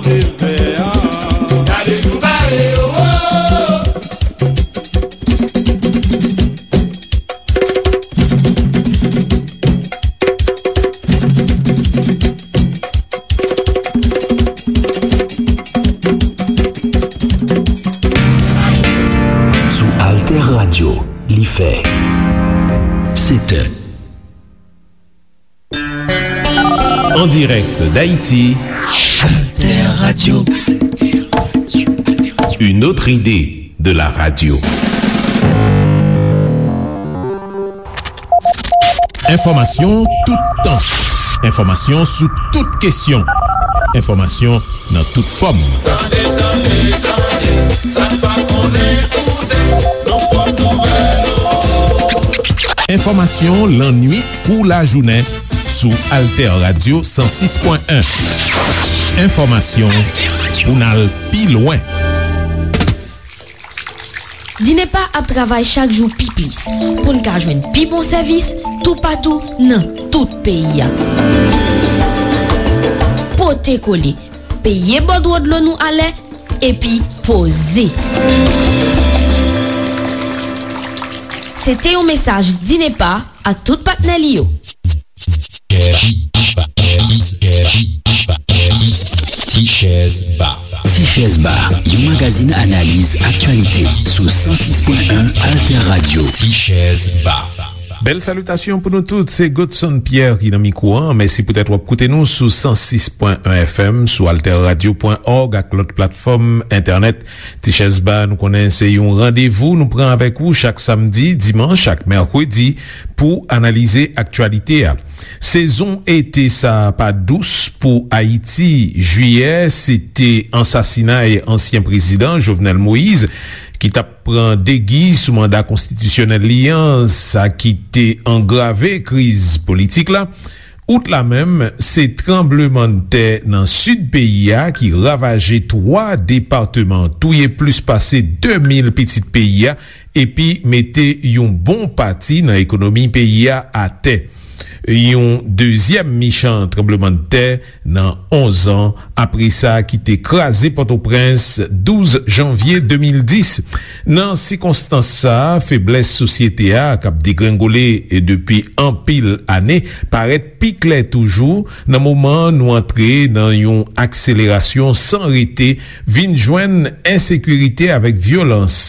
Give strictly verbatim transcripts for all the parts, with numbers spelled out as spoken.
Gade jou bare yo, o. Sou Alter Radio, li fè sèt è. En direct d'Haïti, Alter Radio. Une autre idée de la radio. Enfòmasyon toutan. Enfòmasyon sou tout kesyon. Enfòmasyon nan tout fòm. Tande, tande, tande, sa n pa konnen koute, nou pot nouvèl ou. Enfòmasyon lannuit kou lajounen sou Alter Radio san sis pwen en. Enfòmasyon pou n al pi lwen. Dinepa ap travay chak jou pi plis pou n ka jwenn pi bon sèvis toupatou nan tout peyi a. Pote kole, peye bòdwo dlo nou alè, epi poze. Se te yon mesaj Dinepa ak tout patnè li yo. Tichèz Ba. Tichèz Ba, yon magazin analiz aktyalite sou san sis pwen en Alter Radio. Tichèz Ba. Bèl salitasyon pou nou tout, se Godson Pierre ki nan mikwo an. Mèsi poutèt w ap koute nou sou san sis pwen en F M, sou alter radio pwen org ak lòt platfòm entènèt. Tichèz Ba, nou konnen se yon randevou nou pran avèk ou chak samdi, dimanch ak mèkredi pou analize aktyalite a. Sezon ete sa a pa dous pou Ayiti. Jiyè, se te ansasinay ansyen prezidan Jovenel Moïse, ki t ap pran degi sou manda konstitisyonèl li an, sa ki te angrave kriz politik la. Out la menm, se tranblemanntè nan sid peyi a ki ravaje twa depatman, touye plis pase de mil pitit peyi a, epi mete yon bon pati nan ekonomi peyi a atè. Yon dezyèm michan tranblemanntè nan onz an apre sa ki te kraze Pòtoprens douz janvye de mil dis. Nan sikonstans sa a, feblès sosyete a k ap degrengole depi anpil ane parèt pi klè toujou nan moman nou antre nan yon akselerasyon san rete, vin jwenn ensekirite avèk vyolans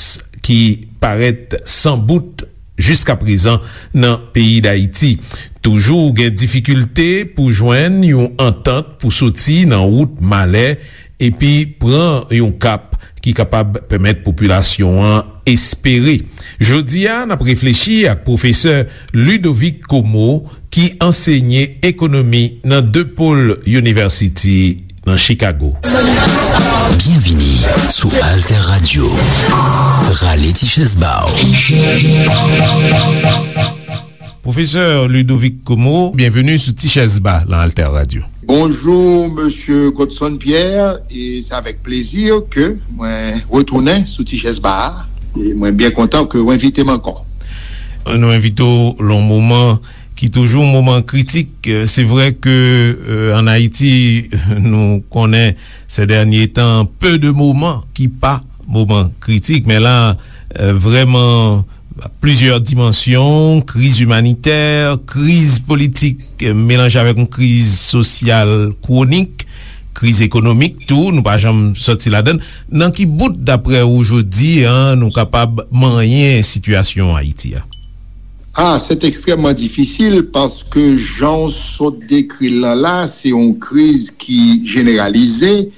ki parèt san bout jiskaprezan nan peyi Dayiti. Toujou gen difikilte pou jwenn yon antant pou soti nan wout malè epi pran yon kap ki kapab pèmèt popilasyon an espere. Jodi a, n ap reflechi ak pwofesè Ludovic Comeau, ki ansenye ekonomi nan DePaul University nan Chicago. Byenvini sou Alter Radio. Rale ti chèz ba w. Pwofesè Ludovic Comeau, byenveni sou Ti Chèz Ba nan Alter Radio. Bonjou, mesye Godson Pierre, e se avèk plezi ke mwen retounen sou Ti Chèz Ba a, e mwen byen kontan ke w envite m ankò. Nou envite w lan yon moman ki toujou yon moman kritik. Se vre ke, euh, ann Ayiti, nou konnen, ces derniers temps, peu de moments ki pa moman kritik, men la, euh, vrèman, plizyè dimansyon, kriz imanitè, kriz politik, euh, melanje avèk yon kriz sosyal kwonik, kriz ekonomik tou, nou pa janm sòti ladann. Nan ki bout, daprè ou, jodi a, nou kapab manyen sitiyasyon Ayiti a? Ah, c'est extrêmement difficile paske jan w sot dekri l lan la, se yon kriz ki jeneralize,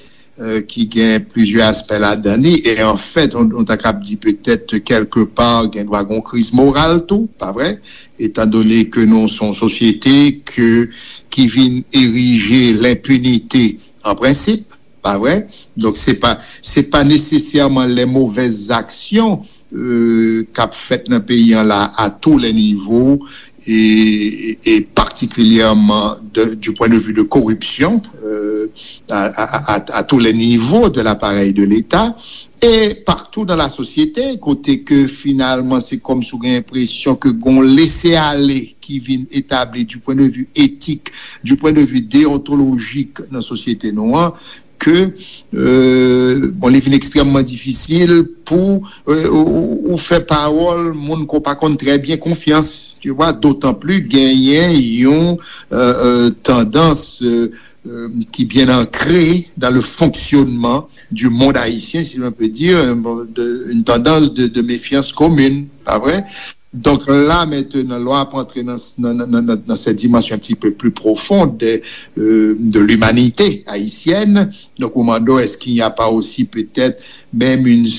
euh, ki gen plizyè aspè ladan li, e anfèt, nou, nou ta kab di petèt kèlkepa gen dwa gen yon kriz moral tou, pa vre? Etandone ke nou se yon sosyete ke, ki vin erije lenpinite an prensip, pa vre? Donk, se pa, se pa nesesèman les mauvaises actions, euh, k ap fèt nan peyi an la, à tous les niveaux, e, e, e particulièrement de, du point de vue de corruption, euh, à, à, à, à tous les niveaux de l'appareil de l'État, et partout dans la société, kote ke finalman se kòmsi w gen enpresyon ke gon lese ale ki vin etabli du point de vue éthique, du point de vue déontologique nan sosyete nou an, ke, euh, bon, li vin ekstrèmman difisil pou, euh, ou, ou, ou fè pawòl moun ke w pa konn trè byen konfyans, tu vois, dotan pli genyen yon, euh, euh, tandans, euh, euh, qui bien ancrée dans le fonctionnement du monde haïtien, si l'on peut dire, euh, bon, de, une tendance de, de méfiance commune, pas vrai? Donc là, maintenant, lè w ap antre nan, nan, nan, nan, nan cette dimension un petit peu plus profonde de, euh, de l'humanité haïtienne, donc ou mande, est-ce qu'il n'y a pas aussi peut-être même une,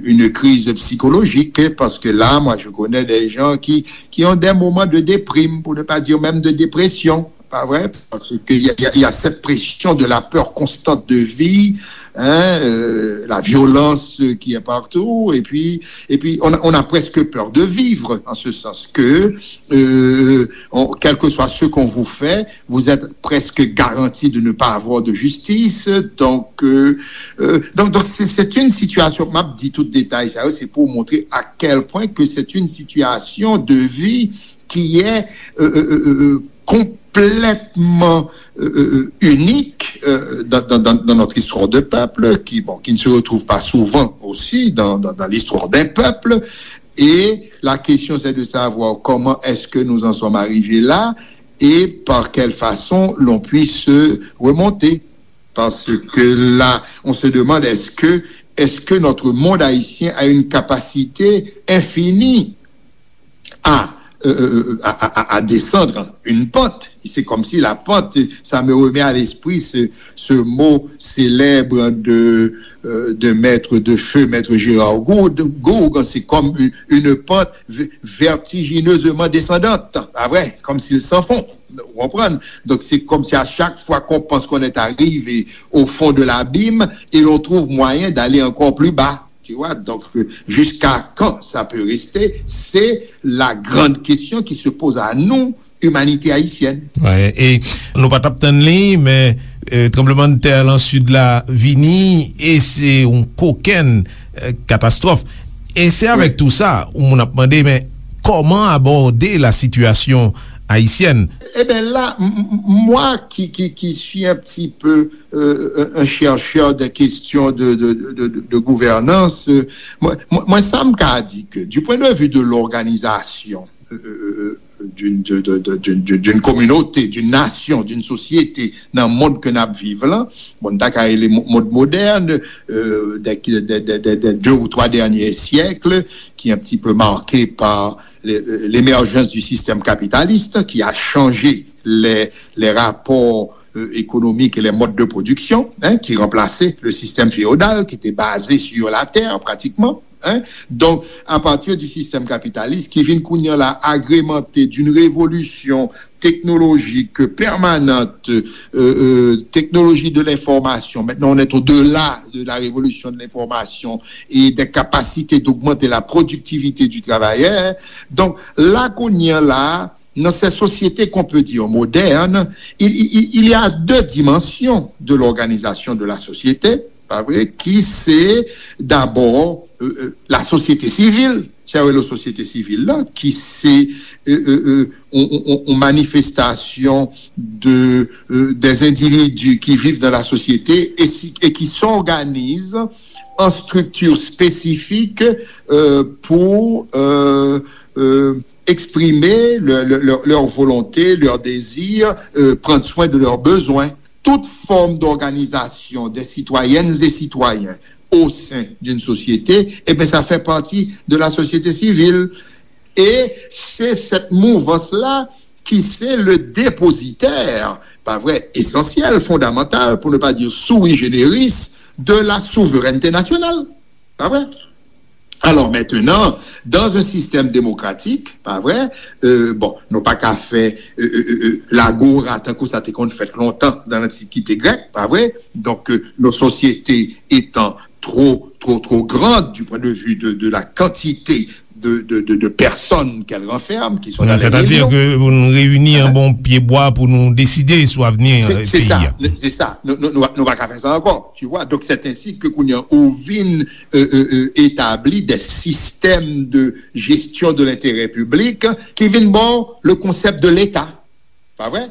une crise psychologique? Parce que là, moi, je connais des gens qui, qui ont des moments de déprime, pour ne pas dire même de dépression. Pas vrai? Parce qu'il y a, il y a, il y a cette pression de la peur constante de vie, hein, euh, la violence qui est partout, et puis, et puis on a, on a presque peur de vivre, en ce sens que, euh, on, quel que soit ce qu'on vous fait, vous êtes presque garanti de ne pas avoir de justice. Donc, euh, euh, donc, donc c'est, c'est une situation, m ap di tout detay sa yo, c'est pour montrer à quel point que c'est une situation de vie qui est euh, euh, euh, euh, complètement euh, euh, unique euh, dans, dans, dans, dans notre histoire de peuple, qui, bon, qui ne se retrouve pas souvent aussi dans, dans, dans l'histoire d'un peuple. Et la question, c'est de savoir comment est-ce que nous en sommes arrivés là et par quelle façon l'on puisse remonter. Parce que là, on se demande, est-ce que, est-ce que notre monde haïtien a une capacité infinie à, euh, euh, à, à, à descendre une pente? C'est comme si la pente, ça me remet à l'esprit ce, ce mot célèbre de, euh, de maître de feu, maître Gérard Gourgue, Gourgue, c'est comme une, une pente v- vertigineusement descendante, pas vrai, comme s'il s'enfonce. Vous comprenez? Donc c'est comme si à chaque fois qu'on pense qu'on est arrivé au fond de l'abîme et l'on trouve moyen d'aller encore plus bas. Tu vois? Donc, euh, jusqu'à quand ça peut rester? C'est la grande question qui se pose à nous, humanité haïtienne. Wi, e nou pa t ap tann li, men euh, tranblemanntè lan sid la vini, e se yon kokenn euh, katastwòf. E se avèk tou sa, ou moun ap mande, men kòman abòde la situation haïtienne? Eh bien là, m- m- moi qui, qui, qui suis un petit peu euh, un chercheur des questions de, de, de, de, de gouvernance, euh, moi, moi, moi, ça me dit que du point de vue de l'organisation euh, d'une de- de- de- d'une- d'une- d'une communauté, d'une nation, d'une société, dans le monde que nous vivons là, bon, dans le monde moderne, euh, des, des- des- des- des deux ou trois derniers siècles, qui est un petit peu marqué par les- euh, l'émergence du système capitaliste, qui a changé les, les rapports euh, économiques et les modes de production, hein, qui remplaçait le système féodal qui était basé sur la terre pratiquement. Hein. Donc, à partir du système capitaliste, qui vient kounye a la agrémenté d'une révolution technologique permanente, euh, euh, technologie de l'information. Maintenant, on est au-delà de la révolution de l'information et des capacités d'augmenter la productivité du travailleur. Donc, là, kounye a la, dans ces sociétés qu'on peut dire modernes, il, il- il y a deux dimensions de l'organisation de la société, pas vrai, qui c'est d'abord euh, euh, la société civile, c'est la société civile là, qui c'est euh, euh, euh, on, on- on- on manifestation de, euh, des individus qui vivent dans la société et, si- et qui s'organisent en structure spécifique euh, pour euh, euh, exprimer leur, leur- leur- leur volonté, leur désir, euh, prendre soin de leurs besoins. Toute forme d'organisation des citoyennes et citoyens au sein d'une société, eh bien, ça fait partie de la société civile. Et c'est cette mouvance-là qui c'est le dépositaire, pas vrai, essentiel, fondamental, pour ne pas dire sui generis, de la souveraineté nationale. Pas vrai? Alors maintenant, dans un système démocratique, pas vrai, euh, bon, nou pa ka fè euh, euh, euh, euh, lagora tankou sa te konn fèt lontan dans l'Antiquité grecque, pas vrai? Donc euh, nos sociétés étant trop, trop, trop grandes du point de vue de, de la quantité de, de, de, de personnes qu'elles renferment, qui sont dans les millions. Sètadi ke pou nou reyini anba yon pye bwa pou nou deside sou avni peyi a. Se sa, nou pa ka fè sa ankò. Tu vois? Donc c'est ainsi que kounye a ou vin euh, euh, euh, établi des systèmes de gestion de l'intérêt public qui vin bon le concept de l'État. Pas vrai?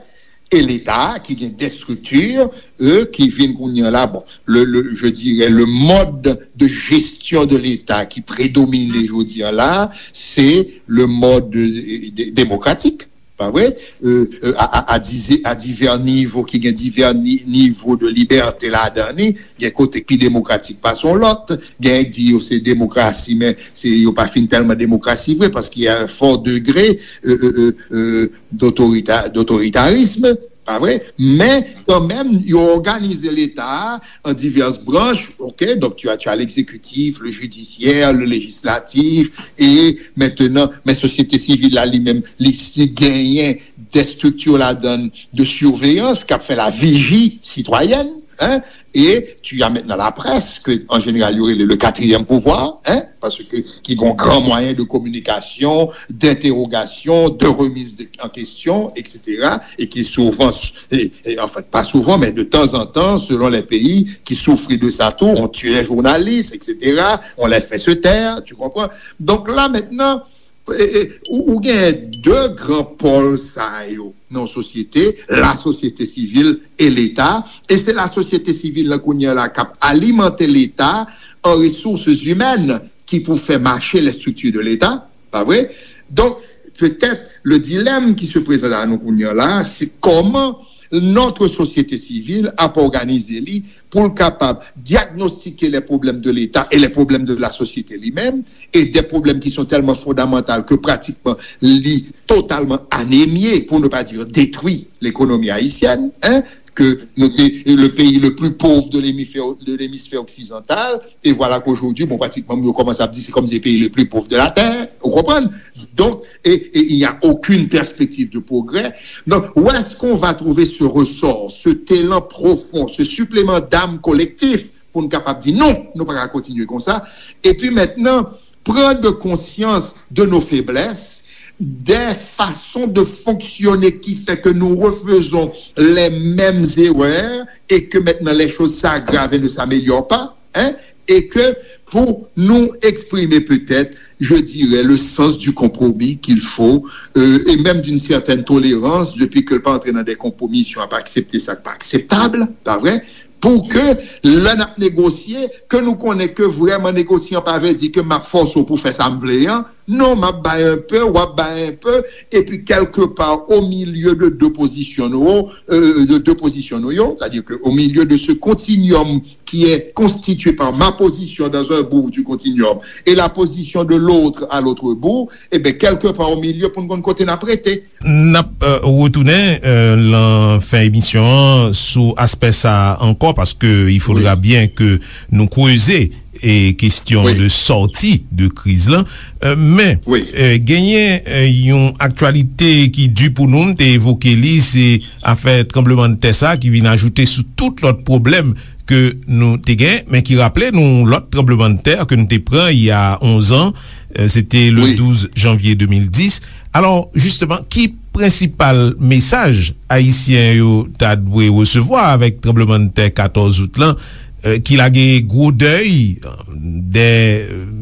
e Leta ki gen de strikti, euh, ki vin kounye an la, bon, le, le, je dirais, le mode de gestion de l'État ki predomine jodi an la, se le mode, euh, de- demokratik, pa vre? Euh, euh, a, a, a dize- a divè nivo, ki gen divè ni- nivo de libète ladan li, gen kote ki demokratik pase yon lòt, gen ki di yo se demokrasi, men se yo pa fin tèlman demokrasi vre, paske y a un fort degré, euh, euh, euh, euh, d'autorita- d'autoritarisme, pa vre? Men kanmenm, yo òganize Leta a an divès branch, ok? Donk, tu as, tu as l'exécutif, le judiciaire, le législatif, et maintenant, men sosyete sivil la li menm, li si genyen de strikti ladan de surveillance k ap fè la vigie citoyenne, hein? Et tu as maintenant la presse, ke an jeneral yo rele le quatrième pouvoir, hein? Paske ki gen yon gran mwayen de kominikasyon, d'interrogation, de remise de- en question, et cetera, e ki souvan, e, e, en fait, pas souvent, mais de temps en temps, selon les pays, qui souffrent de ça tout, on tue les journalistes, et cetera, on les fait se taire, tu comprends? Donc là, maintenant, e, e, ou, ou gen de gran pòl sa yo nan sosyete, la sosyete sivil e Leta, e se la sosyete sivil la kounye a la k ap alimante Leta an ressources humaines ki pou fè mache les structures de l'État, pa vre? Donk, petèt, le dilemme qui se présente à nous kounye a la, se kòman notre société civile ap òganize li pou l kapab diagnostiquer les problèmes de l'État et les problèmes de la société li menm, et des problèmes qui sont tellement fondamentaux que pratiquement li totalement anémié, pour ne pas dire détruit, l'économie haïtienne, hein, que nou te, le pays le plus pauvre de l'hémisphère, de l'hémisphère occidental, et voilà qu'aujourd'hui, bon, pratiquement, yo kòmanse ap di se kòmsi le pays le plus pauvre de la terre, ou konprann? Donc, et, et il n'y a aucune perspective de progrès. Donc, où est-ce qu'on va trouver ce ressort, cet élan profond, ce supplément d'âme collectif pour nous capables de dire non, nous ne pouvons pas continuer comme ça. Et puis maintenant, prendre conscience de nos faiblesses, des façons de fonctionner qui fait que nous refaisons les mêmes erreurs et que maintenant les choses s'aggravent et ne s'améliorent pas, hein, et que pour nous exprimer peut-être, je dirais, le sens du compromis qu'il faut, euh, et même d'une certaine tolérance, depuis que le pas entrer dans des compromissions, à pas accepter ça, pas acceptable, pas vrai? Pou ke lè n ap negosye, ke nou konnen ke vrèman negosyan pa vle di ke m ap fòse w pou fè sa m vle an. Non, m ap bay un peu, w ap bay un peu, epi quelque part au milieu de deux positions nou, euh, de deux positions nou yo, c'est-à-dire que au milieu de ce continuum qui est constitué par ma position dans un bout du continuum et la position de l'autre à l'autre bout, eh bien, quelque part au milieu, pou n konn kote n ap rete. N ap, euh, retounen, euh, lan fen emisyon an sou aspè sa a ankò, paske il faudra bien que nou kreze e kesyon de sòti de kriz lan. Euh, men, euh, genyen, euh, yon aktyalite ki di pou nou, m te evoke li, se afè tranblemanntè sa ki vin ajoute sou tout lòt pwoblèm ke nou te gen, men ki raple nou lòt tranblemanntè ke nou te pran il y a onze ans, euh, se te le douz janvye de mil dis. Alò, jisteman, ki prensipal mesaj ayisyen yo ta dwe resevwa avèk tranblemanntè katòz out lan, euh, ki lage gwo dèy, euh, dè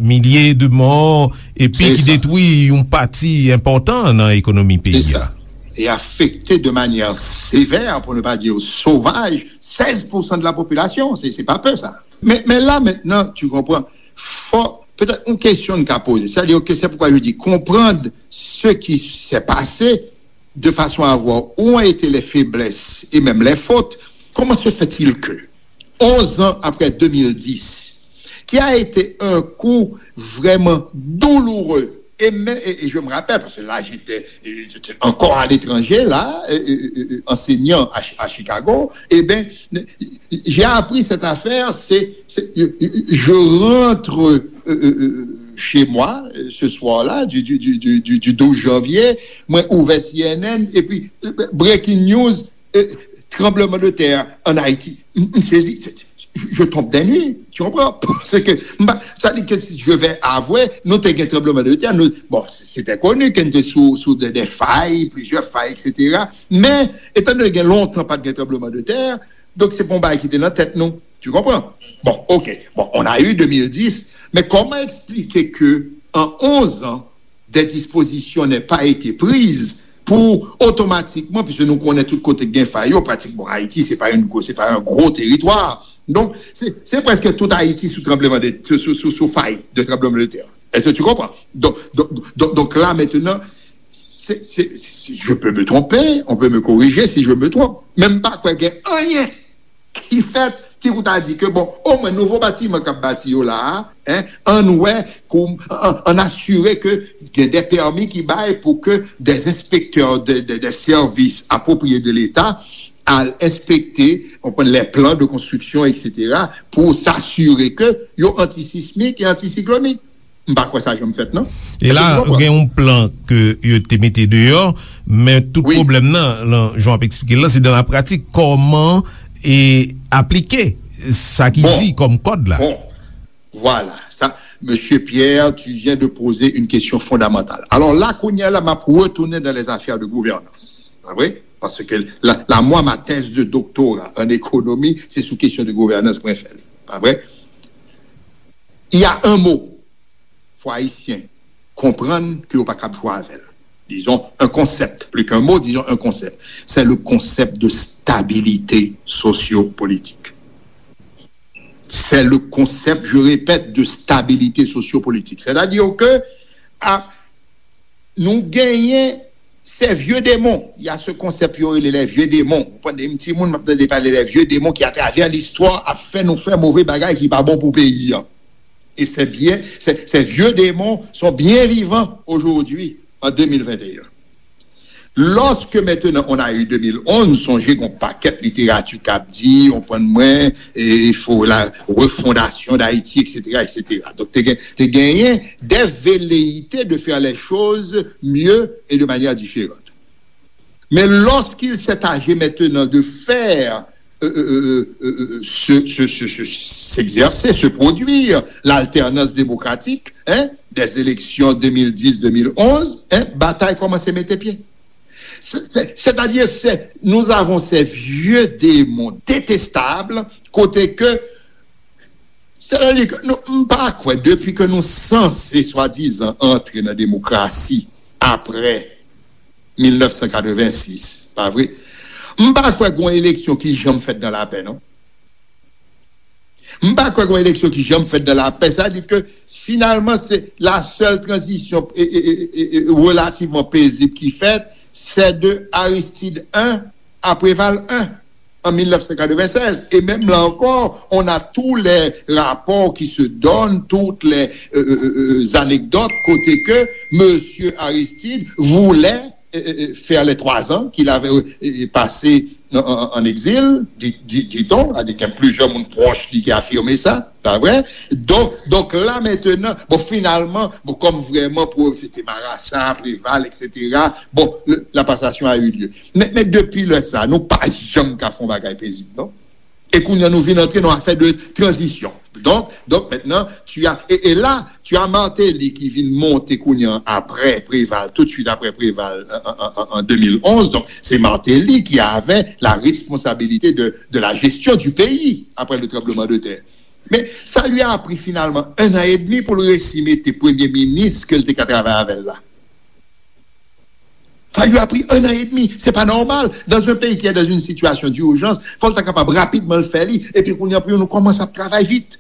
milye de mò, epi ki detwi yon pati enpòtan nan ekonomi peyi a? E afekte de manyè sevè, pou ne pa di sovaj, sèz pou san de la popilasyon. Se, se pa pe sa. Men, men la, mentnan, tu konprann, fò, petèt, yon kesyon n ka poze. Sètadi ke se poukwa je di, konprann ce qui s'est passé de façon à voir où ont été les faiblesses et même les fautes. Comment se fait-il que, onze ans après deux mille dix, qui a été un coup vraiment douloureux, et, même- et- et je me rappelle, parce que là, j'étais, j'étais encore à l'étranger, là, euh, euh, euh, enseignant à, Chi- à Chicago, eh bien, j'ai appris cette affaire, c'est, c'est- je, je rentre, euh, euh, euh, chez moi, euh, ce soir-là, du, du, du, du, du, du douze janvier, mwen ouvè C N N, epi, euh, breaking news, euh, tremblement de terre en Haïti. M, m sezi, se- se- je tombe des nues, tu comprends? Parce que, m pa- sa di ke si je vais avouer, nou te gen tranbleman de tè, nou, bon, se- c'était connu ke nou te sou, sou de, de fay, plizyè fay, et cetera. Men, etan donné gen lontan pa t gen tranbleman de tè, donk se pa yon bagay ki te nan tèt nou, tu comprends? Bon, ok, bon, on a eu deux mille dix, mais comment expliquer que en onze ans, des dispositions n'aient pas été prises pou otomatikman, piske nou konnen tout kote gen fay yo, pratikman Ayiti, se pa yon gwo, se pa yon gwo teritwa. Donk, se, se prèske tout Ayiti sou tranbleman de, sou, sou, sou, sou fay de tranbleman de tè. Èske tu konprann? Donk, donk, donk, donk la, mentnan, se, se, se, je peux me tromper, on peut me corriger si je me trompe. Men m pa kwè gen anyen ki fèt, ki pou ta di ke, bon, omwen nouvo batiman k ap bati yo la a, en, ann wè, kou, ann, ann asire ke gen de pèmi ki bay pou ke de enspektè de, de, de sèvis apwopriye de Leta al enspekte, konprann, les plans de construction, et cetera, pou s'assurer ke yo antisismik e antisiklonik. M pa kwè sa janm fèt, non. E la, gen yon plan ke yo te mete deyò, men tout pwoblèm nan, lan, jan w ap eksplike l lan, se dan la pratik, kòman e aplike sa ki di kòm kòd la. Bon, vwala, sa, Mesye Pierre, tu viens de poser une question fondamentale. Alors là, kounye a la, m ap retounen dans les affaires de gouvernance. Pa vre? Paske la, la, mwa, ma thèse de doctorat en économie, se sou kesyon de gouvernance mwen fè l. Pa vre? Il y a un mot, fò Ayisyen konprann ke yo pa kab jwe avè l. Disons un concept, plus qu'un mot, disons un concept. C'est le concept de stabilité sociopolitique. C'est le concept, je répète, de stabilité sociopolitique. C'est-à-dire que a, nou genyen ces vieux démons. Il y a ce concept yo rele les vieux démons. Ou konn, m timoun, m ap tande pale les vieux démons qui, à travers l'histoire, ap fè nou fè move bagay ki pa bon pou peyi an. Et ces bien, ces, ces vieux démons sont bien vivants aujourd'hui, en deux mille vingt et un. Lorsque maintenant on a eu deux mille onze, sonje gen yon pakèt literati k ap di, ou konprann mwen, e, il faut la refondation d'Haïti, et cetera, et cetera. Donk, te gen, te genyen des velléités de faire les choses mieux et de manière différente. Mais lorsqu'il s'est agi maintenant de faire euh, euh, euh, euh, euh, se, se, se, se, s'exercer, se produire l'alternance démocratique, hein, des élections deux mille dix, deux mille onze, hein, batay kòmanse mete pye. C'est, c'est, c'est-à-dire, c'est, nous avons ces vieux démons détestables, kote ke, c'est-à-dire que nou, m pa kwè, depi ke nou sanse swadizan antre nan demokrasi apre mil nèf san katrevensis, pa vre? M pa kwè gen yon eleksyon ki janm fèt nan lapè, non. M pa kwè gen yon eleksyon ki janm fèt nan lapè. Sa di ke, finalman, se la sèl tranzisyon, e, e, e, e, e, relativman pezib ki fèt, c'est de Aristide un à Préval un en mil nèf san katrevennsèz. Et même là encore, on a tous les rapports qui se donnent, toutes les, euh, euh, euh, anecdotes, kote ke Monsieur Aristide voulait, euh, euh, euh, faire les trois ans qu'il avait, euh, euh, passé en, en, en exil, di, di, dit-on, a di gen plizyè moun pwòch li ki afime sa, pa vre? Donk, donk la mentnan, bon, finalman, bon, kòm vrèman pou se te Marasa, Preval, et cetera, bon, le, la passation a eu lieu. Men, men depi lè sa, nou pa janm ka fè yon bagay pezib, non? E kounye a nou vin antre nan afè de tranzisyon. Donk, donk mentnan, tu as, e, e la, tu as Martelly ki vin monte kounye a apre Preval, tout de suite apre Preval, an, an, an, an de mil onz. Donk, se Martelly ki avè la responsabilité de, de la gestion du pays après le tremblement de terre. Men, sa li a pri finalman un an et demi pou l resi mete premye minis ke l te ka travay avè l la. Sa li a pri un an et demi. Se pa nòmal. Dans un pays qui est dans une situation d'urgence, fò l ta kapab rapidman l fè li. Epi kounye a pou nou kòmanse ap travay vit.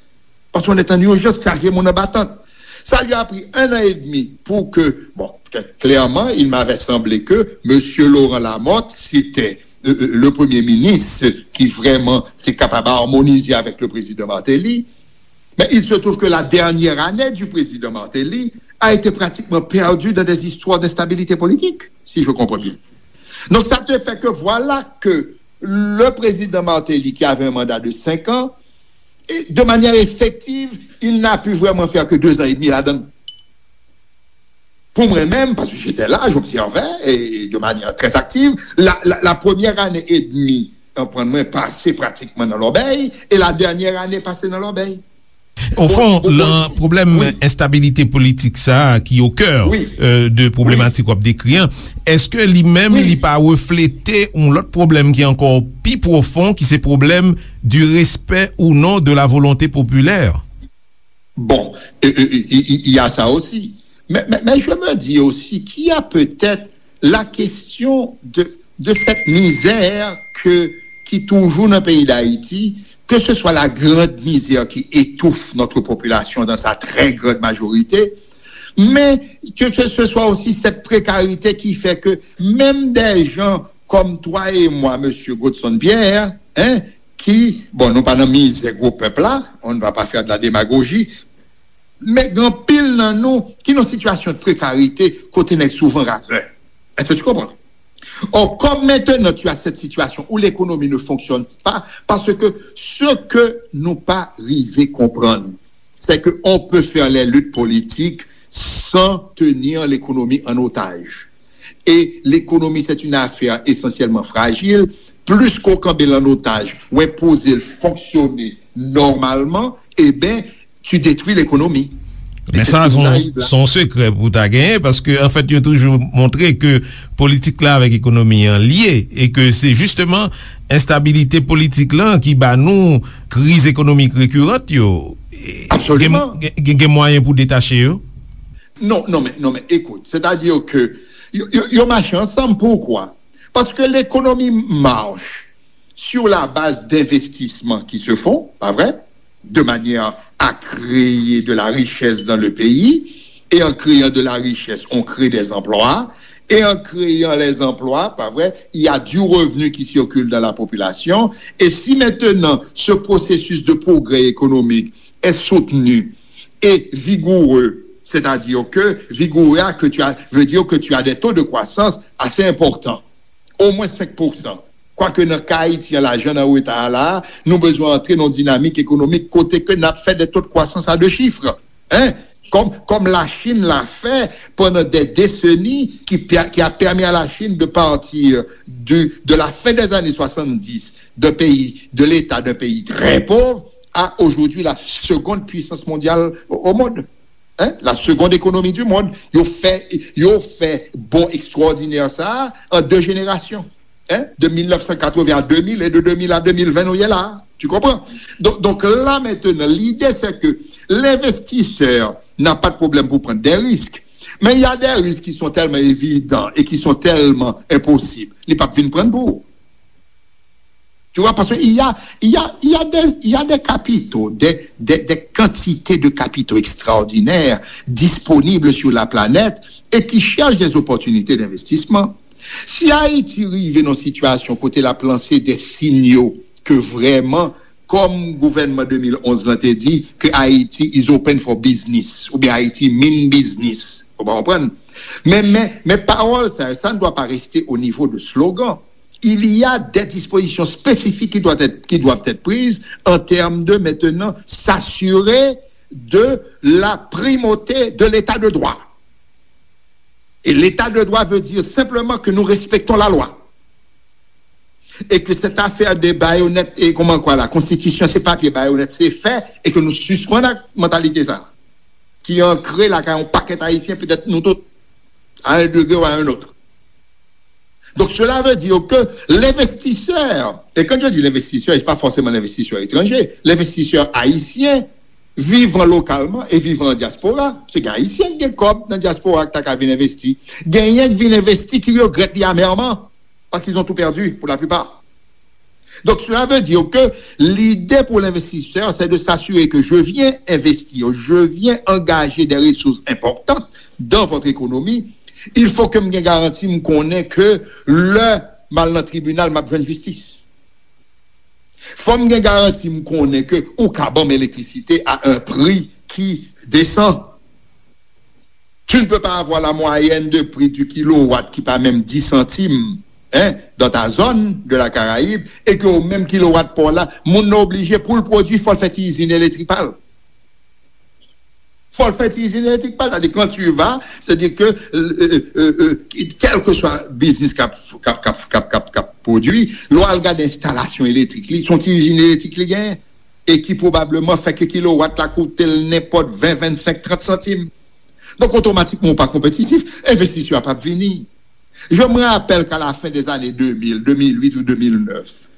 Paske on est en urgence, chaje moun anba tant. Sa li a pri un an et demi pou ke, bon, klèman, il m'avait semblé que Monsieur Laurent Lamothe, c'était, euh, euh, le premier ministre ki vrèman te kapab amonize avèk le président Martelly. Mais il se trouve que la dernière année du président Martelly a été pratiquement perdue dans des histoires d'instabilité politique, si je comprends bien. Donc ça te fait que voilà que le président Martelly, qui avait un mandat de cinq ans, et de manière effective, il n'a pu vraiment faire que deux ans et demi là-dedans. Pou mwen menm, paske j'étais là, j'observais, et de manière très active, la, la, la première année et demie, konprann mwen, pase pratikman nan lòbèy, e la dènyè ane pase nan lòbèy. Ofon, lan pwoblèm enstabilite politik sa a ki o kè, euh, de pwoblematik w ap dekri an, èske li menm li pa reflete yon lòt pwoblèm ki ankò pi pwofon, ki se pwoblèm du respect ou non de la volonté populaire? Bon, il y a ça aussi. Mais, mais, mais je me dis aussi qu'il y a peut-être la question de, de cette misère que, qui toujours dans le pays d'Haïti, que ce soit la grande misère qui étouffe notre population dans sa très grande majorité, mais que, que ce soit aussi cette précarité qui fait que même des gens comme toi et moi, monsieur Godson Pierre, hein, qui, bon, nou pa nan mizè gwo pèp la, on ne va pas faire de la démagogie, men gen anpil nan nou ki nan sitiyasyon de prekarite kote nèg souvan razè. Est-ce que tu comprends? Or, comme maintenant tu as cette situation où l'économie ne fonctionne pas, parce que ce que nous pas arriver comprendre, c'est qu'on peut faire les luttes politiques sans tenir l'économie en otage. Et l'économie, c'est une affaire essentiellement fragile. Plis ke w kenbe l an otaj, w enpoze l fonksyone nòmalman, eben, tu détruis l'économie. E Men se sa, se yon sekrè pou w ta genyen, paske, anfèt, yo toujou montre ke politik la avèk ekonomi an lye, e ke se jisteman enstabilite politik lan ki ba nou kriz ekonomik rekirant yo. Absoliman. Gen mwayen pou detache yo? Non, non, men, non, men, écoute, c'est-à-dire que yo, yo, yo mache ansanm. Pourquoi? Parce que l'économie marche sur la base d'investissements qui se font, pas vrai? De manière à créer de la richesse dans le pays. Et en créant de la richesse, on crée des emplois. Et en créant les emplois, pas vrai, il y a du revenu qui circule dans la population. Et si maintenant ce processus de progrès économique est soutenu et vigoureux, c'est-à-dire que vigoureux que tu as, veut dire que tu as des taux de croissance assez importants, au moins cinq pour cent. Kwake nan ka Ayiti an, lajan nan reta a la, nou bezwen antre nan yon dinamik ekonomik kote ke n ap fè de taux de croissance à deux chiffres. Hein? Comme, comme la Chine l'a fait pendant des décennies, qui, qui a permis à la Chine de partir du, de la fin des années soixante-dix, d'un pays, de l'état d'un pays très pauvre, à aujourd'hui la seconde puissance mondiale au, au monde. Hein? La seconde économie du monde. Yo fè, yo fè bò ekstwòdinè sa a an de jenerasyon. Hein? De mil nèf san katreven a de mil e de de mil a de mil ven nou ye la. Tu comprends? Donc, donc là maintenant, l'idée c'est que l'investisseur n'a pas de problème pour prendre des risques. Mais il y a des risques qui sont tellement évidents et qui sont tellement impossibles. Li p ap vin pran pou ou. Tu vois, parce qu'il y a, il y a, il y a des, il y a des capitaux, des, des, des quantités de capitaux extraordinaires disponibles sur la planète et qui cherchent des opportunités d'investissement. Si Ayiti rive nan sitiyasyon kote l ap lanse de sinyal ke vrèman, kòm gouvènman de mil onz lan te di, ke Haiti is open for business, oubyen Haiti mean business. Ou pa konprann? Men, men, men pawòl sa, ça ne doit pas rester au niveau de slogan. Il y a des dispositions spécifiques qui doivent être, qui doivent être prises en termes de maintenant s'assurer de la primauté de l'état de droit. Et l'état de droit veut dire simplement que nous respectons la loi. Et que cette affaire de bayonet, et comment quoi, la constitution, c'est papier, bayonet, c'est fait, et que nous suspendons la mentalité ça, qui est ancrée là, quand on paquet haïtien, peut-être nous tous, à un degré ou à un autre. Donc cela veut dire que l'investisseur, et quand je dis l'investisseur, c'est pas forcément l'investisseur étranger, l'investisseur haïtien vivant localement et vivant en diaspora, se gen Ayisyen ki gen kòb nan dyaspora ki ta ka vin envesti. Genyen ki vin envesti ki regrèt li amèrman, parce qu'ils ont tout perdu pour la plupart. Donc cela veut dire que l'idée pour l'investisseur, c'est de s'assurer que je viens investir, je viens engager des ressources importantes dans votre économie. Il faut que m gen garanti, m konnen ke lè m al nan tribinal, m ap jwenn jistis. Fò m gen garanti, m konnen ke ou ka ban m elektrisite à un prix qui descend. Tu ne peux pas avoir la moyenne de prix du kilowatt qui pas même dix centimes, hein, dans ta zone de la Caraïbe, et que au même kilowatt pa w la, moun nan oblije pou l pwodui, fò l fè ti izin elektrik pa l. Fò l fè ti izin elektrik pa l. C'est-à-dire, quand tu vas, c'est-à-dire que, euh, euh, euh, quel que soit business k ap, k ap, k ap, k ap, k ap, k ap pwodui, lè w al gade enstalasyon elektrik li, se yon ti izin elektrik li genyen, e ki pwobableman fè ke kilowatt la koute l nenpòt ven, vennsenk, trant santim. Donk, otomatikman, ou pa konpetitif, envestisè a p ap vini. Je me rappelle qu'à la fin des années deux mille, deux mille huit ou deux mille neuf,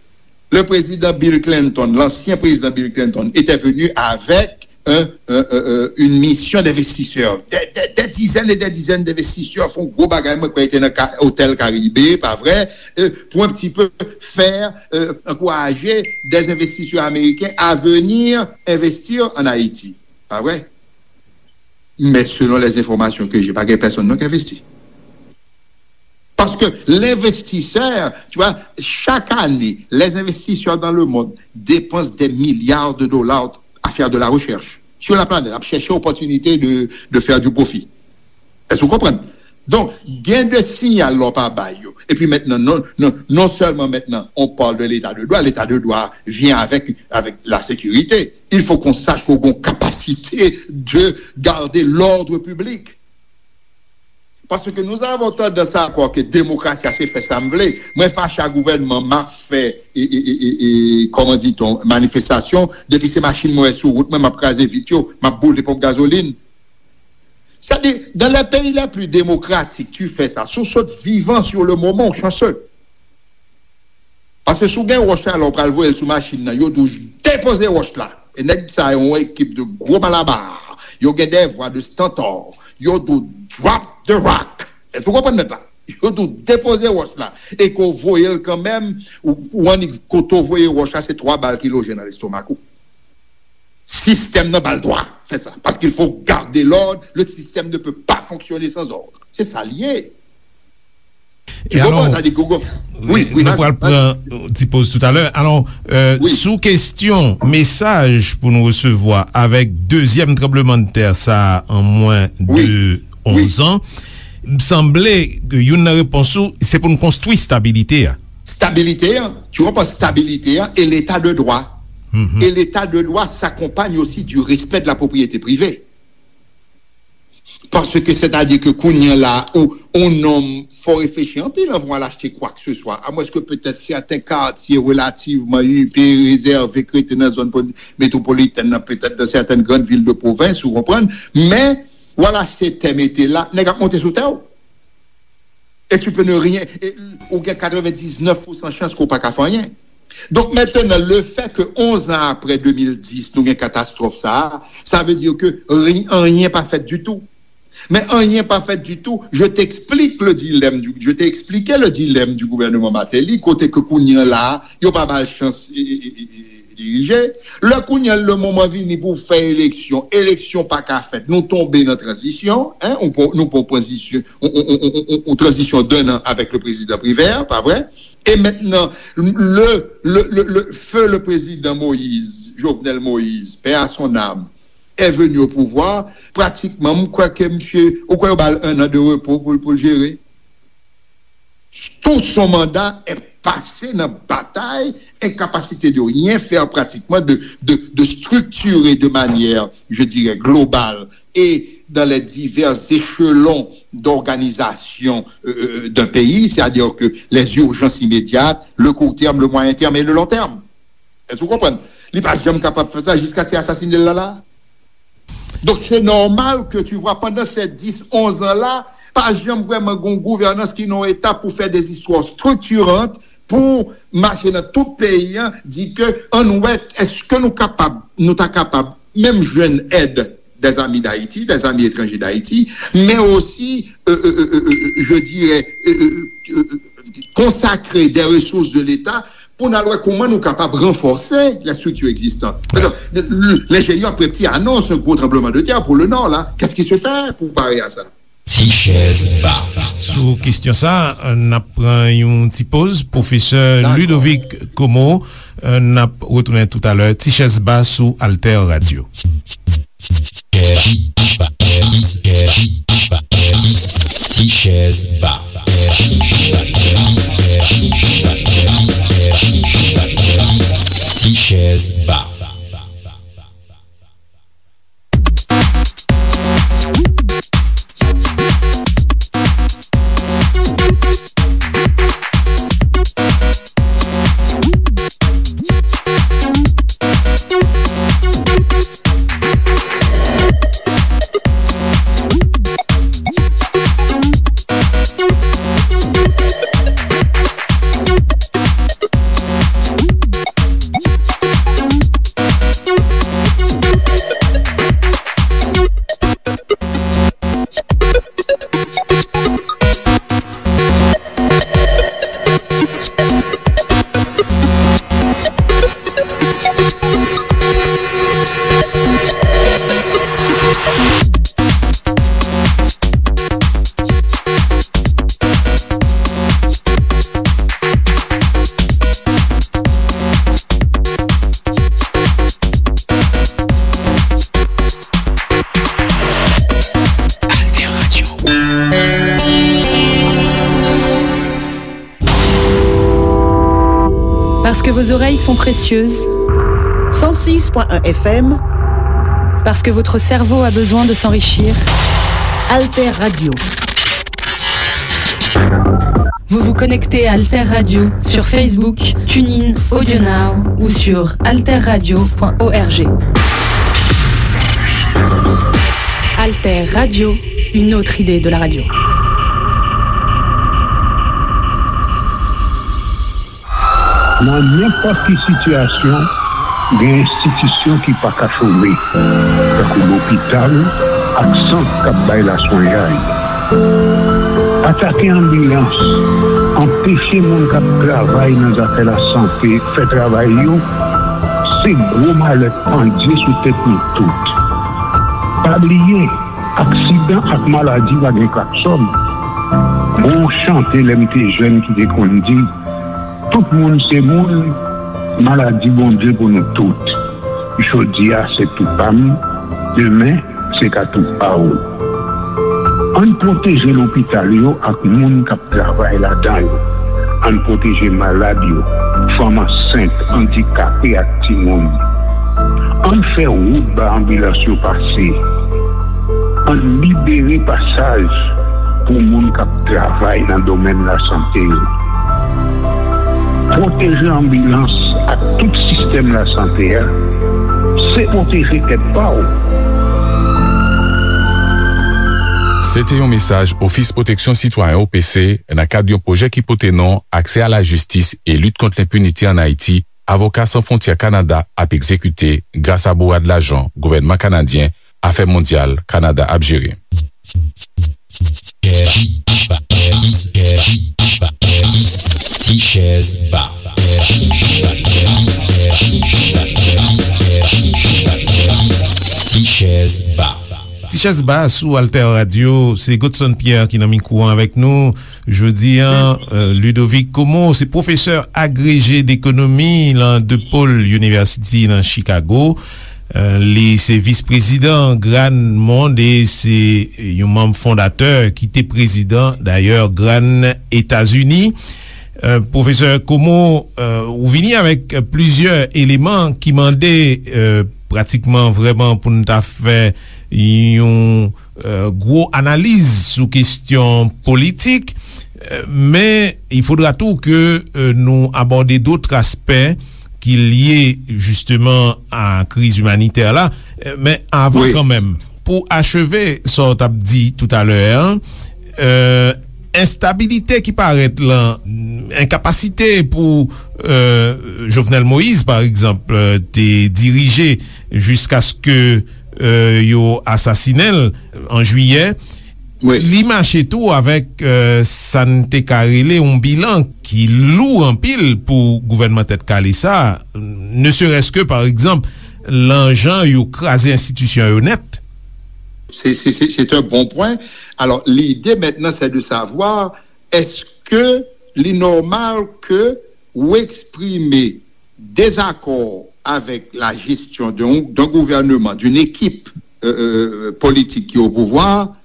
le président Bill Clinton, l'ancien président Bill Clinton, était venu avec un, un, un, un, une mission d'investisseurs. Des, des, des dizaines et des dizaines d'investisseurs font gros bagay, mwen kwè te nan ka, Hotel Caribe, pa vre, euh, pour un petit peu faire, euh, encourager des investisseurs américains à venir investir en Haïti. Pa vre? Mais selon les informations que j'ai, pa gen pèsonn non ki envesti. Parce que l'investisseur, tu vois, chaque année, les investisseurs dans le monde dépensent des milliards de dollars à faire de la recherche sur la planète, à chercher opportunité de, de faire du profit. Est-ce que vous comprenez? Donk, gen de siyal lè w pa bay yo. Epi mentnan, non, non, non sèlman mentnan, on parle de l'état de droit, l'état de droit vient avec, avec la sécurité. Il faut qu'on sache qu'on a une capacité de garder l'ordre public. Paske nou avon tandans a kwè ke demokrasi a se fè sa m vle. Mwen fache a gouvènman, m ap fè, e, e, e, e, e, kòman di-t-on, manifestasyon. Depi se machin mwen wè sou wout mwen, m ap kraze vit yo, m ap boule ponp gazolin. Sa di, dans les pays les plus démocratiques, tu fais ça. Si w sot vivan sur le moment, ou chanceux. Paske si w gen wòch la, lè w pral voye l sou machin nan, yo di w depoze wòch la. E nèg sa yo, yon ekip de gwo malaba. Yo gen des voix de stentor. Yo di w drop the rock. Èske w konprann nèt la? Yo di w depoze wòch la. E ke w voye l kanmenm, ou, ou annik kote w voye wòch la, se twa bal ki loje nan lestomak ou. Sistèm nan ba l dwa fè sa. Parce qu'il faut garder l'ordre, le système ne peut pas fonctionner sans ordre. Se sa l ye. E alò, sa di Google. Wi, wi, nou pral pran yon ti poz toutalè. Alò, euh, sou kesyon mesaj pou nou resevwa avèk dezyèm tranblemanntè sa a an mwen de onz an, m sanble ke youn nan repons ou, se pou n konstwi stabilite a. Stabilité, hein, tu comprends, stabilité, hein, et l'état de droit. Et l'état de droit s'accompagne aussi du respect de la propriété privée. Paske, sètadi ke kounye a la, ou, yon nonm, fò reflechi anpil anvan w al achte kwa ke se swa. Amwenske petèt sèten katye relativman ipe, rezève, k rete nan zòn poli-, metwopolitèn nan, petèt dans certaines grandes villes de province, ou konprann. Men, w al achte tè mete la, nèg ap monte sou tè w. Et tu peux ne rien, e, ou gen katrevendisnèf pousan chans ke w pa ka fè anyen. Donk, mentnan, le fait que onz an apre de mil dis, nou gen katastwòf sa a, sa vle di ke ri-, anyen pa fèt ditou. Men anyen pa fèt ditou, je t'explique le dilemme du, je t'ai expliqué le dilemme du gouvernement Martelly, kote ke kounye a la, yo pa ba l chans, e, e, e, e, dirije. Lè kounye a, le moman vini pou fè eleksyon, eleksyon pa ka fèt. Nou tonbe nan tranzisyon, en, nou pran, nou pran tranzisyon, on, on, on, on, on tranzisyon d'un an avec le président Privert, pa vre? E mentnan, le, le, le, le feu le président Moïse, Jovenel Moïse, paix à son âme, est venu au pouvoir, pratikman, m kwè ke misye, ou kwè yo ba l un an de repo pou, pou l jere? Tout son mandat est passé dans bataille, incapacité de rien faire pratiquement, de, de, de structurer de manière, je dirais, globale et dans les divers échelons d'organisation, euh, euh, d'un pays, c'est-à-dire que les urgences immédiates, le court terme, le moyen terme et le long terme. Èske w konprann? Li pa janm kapab fè sa jiskaske asasinen l la la. Donk, se nòmal ke tu vois, pandan se dis, onz an la, pa janm vrèman gon gouvènans ki nan yon etap pou fè des histoires structurantes, pou mache nan tout peyi an, di ke ann wè, èske nou kapab, nou ta kapab menm jwenn èd des amis d'Haïti, des amis étrangers d'Haïti, men osi, euh, euh, euh, euh, euh, je dirais, euh, euh, euh, euh, consacrer des ressources de l'État pou n al wè kòman nou kapab ranfòse les structures existantes. Par exemple, le, le, l'ingénieur Prepti annonce un gros tremblement de terre pour le Nord, là. Qu'est-ce qui se fait pour parer à ça? Ti chèz ba. Sou kesyon sa, n ap pran yon ti poz. Pwofesè Ludovic Comeau, n ap retounen toutalè. Ti chèz ba sou Alter Radio. Ti chèz ba. Ti chèz ba. Parce que vos oreilles sont précieuses. Cent six point un F M. Parce que votre cerveau a besoin de s'enrichir. Alter Radio. Vous vous connectez à Alter Radio sur Facebook, TuneIn, AudioNow ou sur alter radio point org. Alter Radio, une autre idée de la radio. Nan nenpòt ki sitiyasyon, gen enstitisyon ki pa ka chome, tankou lopital ak sant k ap bay laswenyay. Atake anbilans, anpeche moun k ap travay nan zafè lasante fè travay yo, se gwo malè k pandye sou tèt nou tout. Pa bliye, aksidan ak maladi pa gen klaksòn. Gon chante lè m te jèn ki te konn di, tout moun se moun, maladi Bondye pou nou tout. Jodi a se tou pa m, demen se ka tou pa w. Ann pwoteje lopital yo ak moun k ap travay ladan yo. Ann pwoteje malad yo, fanm ansent, andikape ak timoun. Ann fè wout ba anbilans yo pase. Ann libere pasaj pou moun k ap travay nan domèn lasante yo. Pwoteje anbilans ak tout sistèm lasante a, se pwoteje tèt pa w. Se te yon mesaj Ofis Pwoteksyon Sitwayen, O P C, nan kad yon pwojè ki pote non Aksè a la jistis e lit kont lenpinite ann Ayiti, Avoka San Fwontyè Kanada ap egzekite gras a bourad lajan gouvènman kanadyen Afè Mondyal Kanada ap jere. Ti chèz ba. Ti chèz ba. Ti chèz ba sou Alter Radio, se Godson Pierre ki nan mikwo an avèk nou. Jodi a, euh, Ludovic Como se pwofesè agreje dekonomi lan DePaul University nan Chicago. Euh, li se vis prezidan GRAHN Monde e se yon manm fondatè ki te prezidan, dayè, GRAHN Etazini. Euh, Pwofesè Como, euh, ou vini avèk plizyè eleman ki mande, euh, pratikman vrèman pou n ta fè yon, euh, gwo analiz sou kestyon politik, euh, men il faudra tou ke, euh, nou abòde dòt aspè ki lye jisteman a kriz imanitè la. Euh, men avan, wi, kanmenm, pou acheve sa w t ap di toutalè a, euh, enstabilite ki parèt lan, enkapasite pou, euh, Jovenel Moïse, pa egzanp, euh, te dirije jiskaske, euh, yo asasinen l an jiyè, wi, li mache tou avèk, euh, sa n te ka rele yon bilan ki lou anpil pou gouvènman Tèt Kale sa, ne serait-ce que, pa egzanp, lan jan yo kraze enstitisyon yo nèt. C'est, c'est, c'est, c'est un bon point. Alors, l'idée maintenant, c'est de savoir, est-ce que li nòmal ke ou eksprime dezakò avèk la gestion d'un, d'un gouvernement, d'une équipe, euh, euh, politique qui est au pouvoir,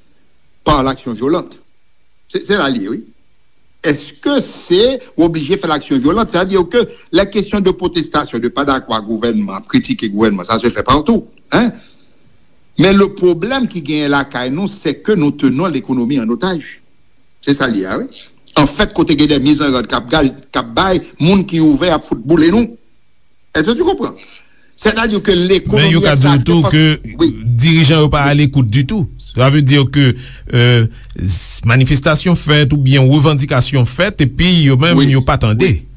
par l'action violente? Se, se la l ye, wi. Èske se oblije fè laksyon vyolan? Sa vle di ke la kesyon de pwotestasyon, de pa dakò ak gouvènman, ap kritike gouvènman, sa se fè patou, hein? Men le pwoblèm ki genyen lakay nou, se ke nou tenons l'économie en otage. Se sa l ye a, wi. Anfèt, kote gen de mizanròd k ap gal, k ap bay, moun ki ouvè ap fout boule nou. Èske tu konpran? Sètadi ke lekonomi... Men yo ka di w tou ke dirijan yo pa alekout ditou. Sa vle di ke, euh, s-, manifestasyon fèt oubyen revandikasyon fèt, epi yo menm, wi, yo pa tande. Wi.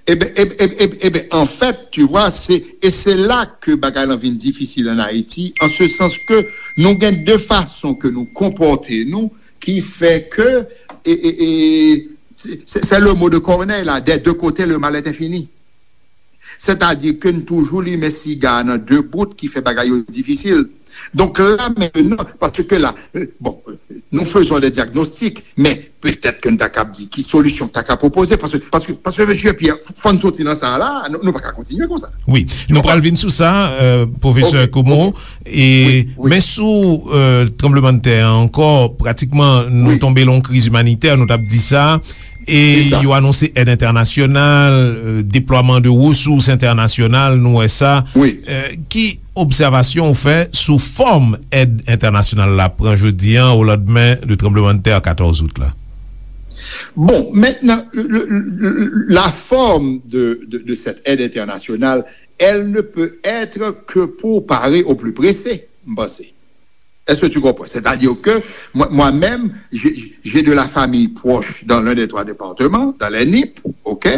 Eben, eben, eben, eben, anfèt, tu vois, se, e se la ke bagay lan vin difisil an Ayiti, an se sans ke nou gen de fason ke nou konpòte nou ki fè ke, e, e, e, se, se, c'est le mot de Corneille la, des deux côtés le mal est infini. Sètadi ke n toujou limen siga a nan de bout ki fè bagay yo difisil. Donk la, mentnan, paske la, euh, bon, euh, nous faisons des diagnostics, men Petèt ke n ta kab di ki solisyon k ta ka pwopoze, paske, paske, paske, mesye Pierre, fò n soti nan sa a la, nou, nou pa ka kontinye konsa. Wi, nou pral vin sou sa, euh, pwofesè Komo, e, men sou, euh, tranblemanntè a ankò, pratikman, nou tonbe lan yon kriz imanitè, nou t ap di sa, e yo anonse èd entènasyonal, euh, deplwaman de resous entènasyonal, nou wè sa. Euh, ki obsèvasyon ou fè sou fòm èd entènasyonal la pran jodi a, o landmen de tranblemanntè katòz out la? Bon, maintenant, le, le, le, la forme de, de, de cette aide internationale, elle ne peut être que pour parer au plus pressé, m panse. Est-ce que tu comprends? C'est-à-dire que moi, moi-même, j'ai, j'ai de la famille proche dans l'un des trois départements, dans les Nip, ok?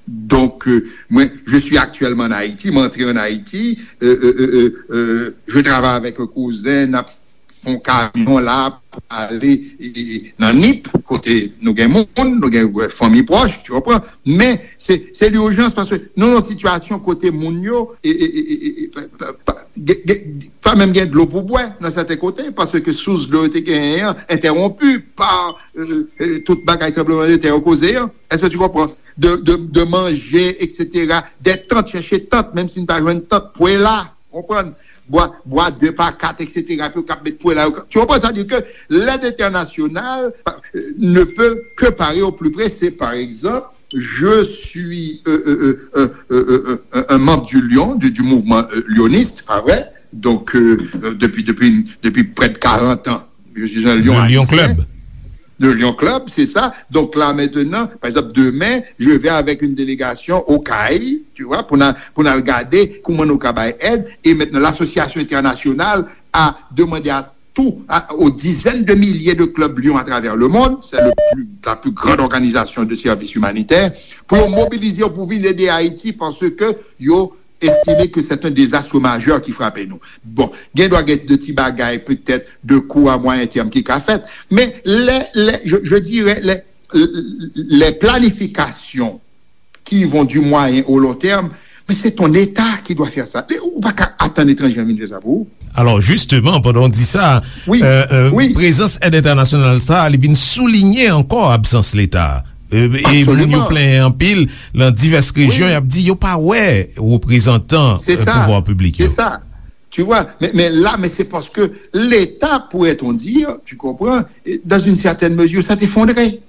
Donc, euh, moi, je suis actuellement en Haïti, m antre en Haïti, euh, euh, euh, euh, euh, je travaille avec un cousin, n ap fè yon kamyon la pou ale, e, e, nan Nip, kote nou gen moun, nou gen, euh, fanmi pwòch, tu comprends? Men se, se lijans, paske nou nan yon sitiyasyon kote moun yo, e, e, e, e, e, pa, pa, pa, gen, gen, pa menm gen dlo pou bwè nan sèten kote, paske sous dlo yo te genyen an entèwonpi pa, euh, euh, tout bagay tranblemanntè yo koze an. Est-ce que tu comprends? De, de, de manger, et cetera. Des tentes, chèche tant, menm si n pa jwenn tant, pwe la, konprann? Bwa, bwa de pa kat, et cetera. Pou yo kab met pwe la, yo ka, tu comprends? Sa di ke lèd entènasyonal, euh, ne peut que parer au plus pressé. Par exemple, je suis, euh, euh, euh, euh, euh, euh, un, un membre du Lion, du, du mouvement, euh, lyoniste, pa vre? Donc, euh, euh, depuis, depuis, depuis près de quarante ans, je suis un Lion haïtien. Le Lion Club. Le Lion Club, c'est ça. Donc là, maintenant, par exemple, demain, je vais avec une délégation au CAI, tu vois, pour n al, pour n al gade comment nous travaillons. Et maintenant, l'association internationale a demandé à tout, à, aux dizaines de milliers de clubs Lion à travers le monde, c'est le plus, la plus grande organisation de services humanitaires, pour mobiliser, pour venir aider Haïti, parce que yo estime ke se yon dezas majè ki frape nou. Bon, gen dwa gen de ti bagay, petèt, de kou a mwayen tèm ki ka fèt, men lè, lè, je, je dirais, les, les planifications qui vont du moyen au long terme, mais c'est ton État qui doit faire ça. Ou pa ka atann etranje vin fè sa pou ou. Alò, jisteman, pandan w di sa, prezans èd entènasyonal sa a, li vin soulinye ankò absans Leta. E moun yo plenyen anpil nan divès rejyon, y ap di yo pa wè reprezantan pouvwa piblik yo. C'est ça. Tu vois, mais, mais là, mais c'est parce que l'État, pourrait-on dire, tu comprends, dans une certaine mesure, s'est effondré.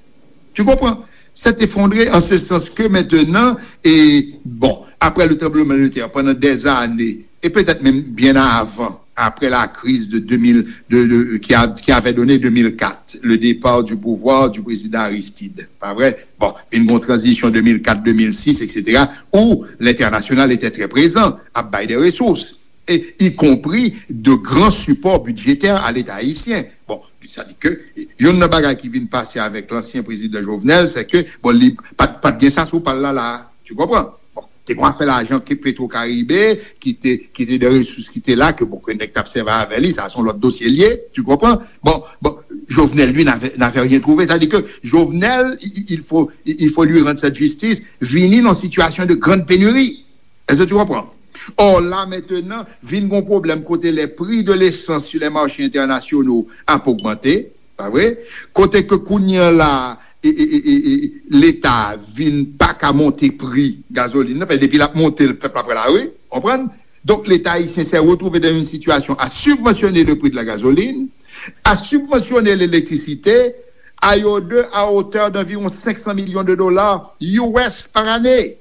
Tu comprends? S'est effondré en ce sens que maintenant, et bon, après le tremblement de terre, pendant des années, et peut-être même bien avant, après la crise de deux mille, de, de, qui a, qui avait donné deux mille quatre, le départ du pouvoir du président Aristide, pas vrai? Bon, une bonne transition deux mille quatre, deux mille six, et cetera, où l'international était très présent, à bail des ressources, et y compris de grands supports budgétaires à l'État haïtien. Bon, sa di ke youn nan bagay ki vin pase avèk lansyen prezidan Jovenel, se ke, bon, li pa t, pa t gen sa sou pa l la, la. Tu comprends? Bon, te gen afè lajan ke Petro Caribe, ki te, ki te de resous ki te la, ke, bon, ke nèg t ap sèvi avè li, sa se yon lòt dosye l ye, tu comprends? Bon, bon, Jovenel, lui, n'avait, n'avait rien trouvé. Sa di ke Jovenel, il, il faut, il faut lui rendre cette justice, vini nan sitiyasyon de grande pénurie. Est-ce que tu comprends? Or, la, maintenant, vin gon pwoblèm kote les prix de l'essence sur les marchés internationaux ap ogmante, pa vre? Kote ke kounye a la, e, e, e, e, e, Leta vin pa ka monte pri gazolin nan, paske depi l ap monte, pèp la pran lari, konprann? Donc, l'État haïtien s'est retrouvé dans une situation à subventionner le prix de la gasoline, à subventionner l'électricité, à hauteur, à hauteur d'environ cinq cents millions de dollars U S par année.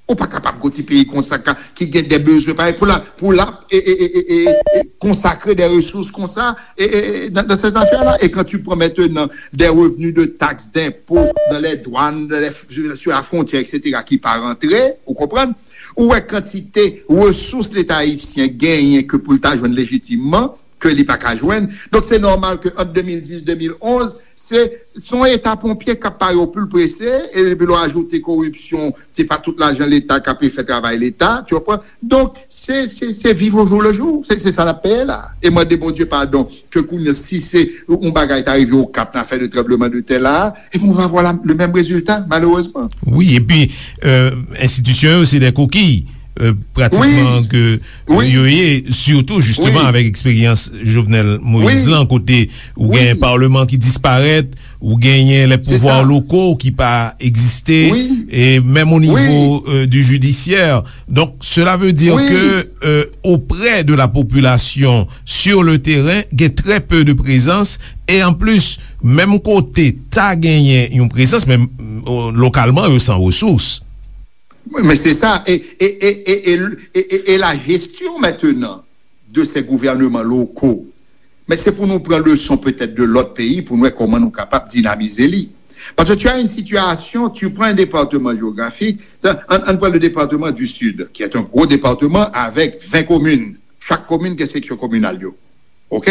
Ou pa kapab gon ti peyi konsa ka, ki gen de bezwen parèy pou la, pou la, e, e, e, e, e, e, konsakre de resous konsa, e, e, e, dans, dans ces affaires-là. Et quand tu prends maintenant des revenus de taxes, d'impôts, dans les douanes, dans les, sur la frontière, et cetera, ki pa rantre, ou konprann? Ou wè kantite resous Leta ayisyen genyen ke pou l ta jwenn lejitimman, ke li pa ka jwenn. Donk, se nòmal ke ant de mil dis, de mil onz, se, se yon eta ponpye k ap pare o pli prese, e depi lè w ajoute koripsyon, se pa tout lajan Leta k ape fè travay Leta, tu comprends? Donk, se, se, se viv au jour le jour. Se, se sa n ap peye la. E mande Bondye padon, ke kounye a, si se yon bagay ta rive Okap nan afè de tranbleman de tè la, e ben, on va avoir la, le même résultat, malheureusement. Wi, epi, euh, enstitisyon yo, se de kokiy. euh, pratikman ke yo ye, sitou jisteman avèk eksperyans Jovenel Moïse lan, kote ou gen palman ki disparèt, ou genyen lè pouvwa loko ki pa egziste, e menm o nivo, euh, du judiciaire. Donc, cela veut dire que, euh, auprès de la population, sur le terrain, gen très peu de présence, e an plis, menm kote ta genyen yon prezans, men, euh, lokalman, yo san resous. Men se sa, e, e, e, e, e, e, e la gestion maintenant de ces gouvernements locaux, men se pou nou pran leson petèt de lòt peyi pou nou wè kòman nou kapab dinamize li. Parce que tu as une situation, tu prends un département géographique, an, an pran le département du Sud, qui est un gros département avec vingt communes. Chaque commune gen section communale yo. OK?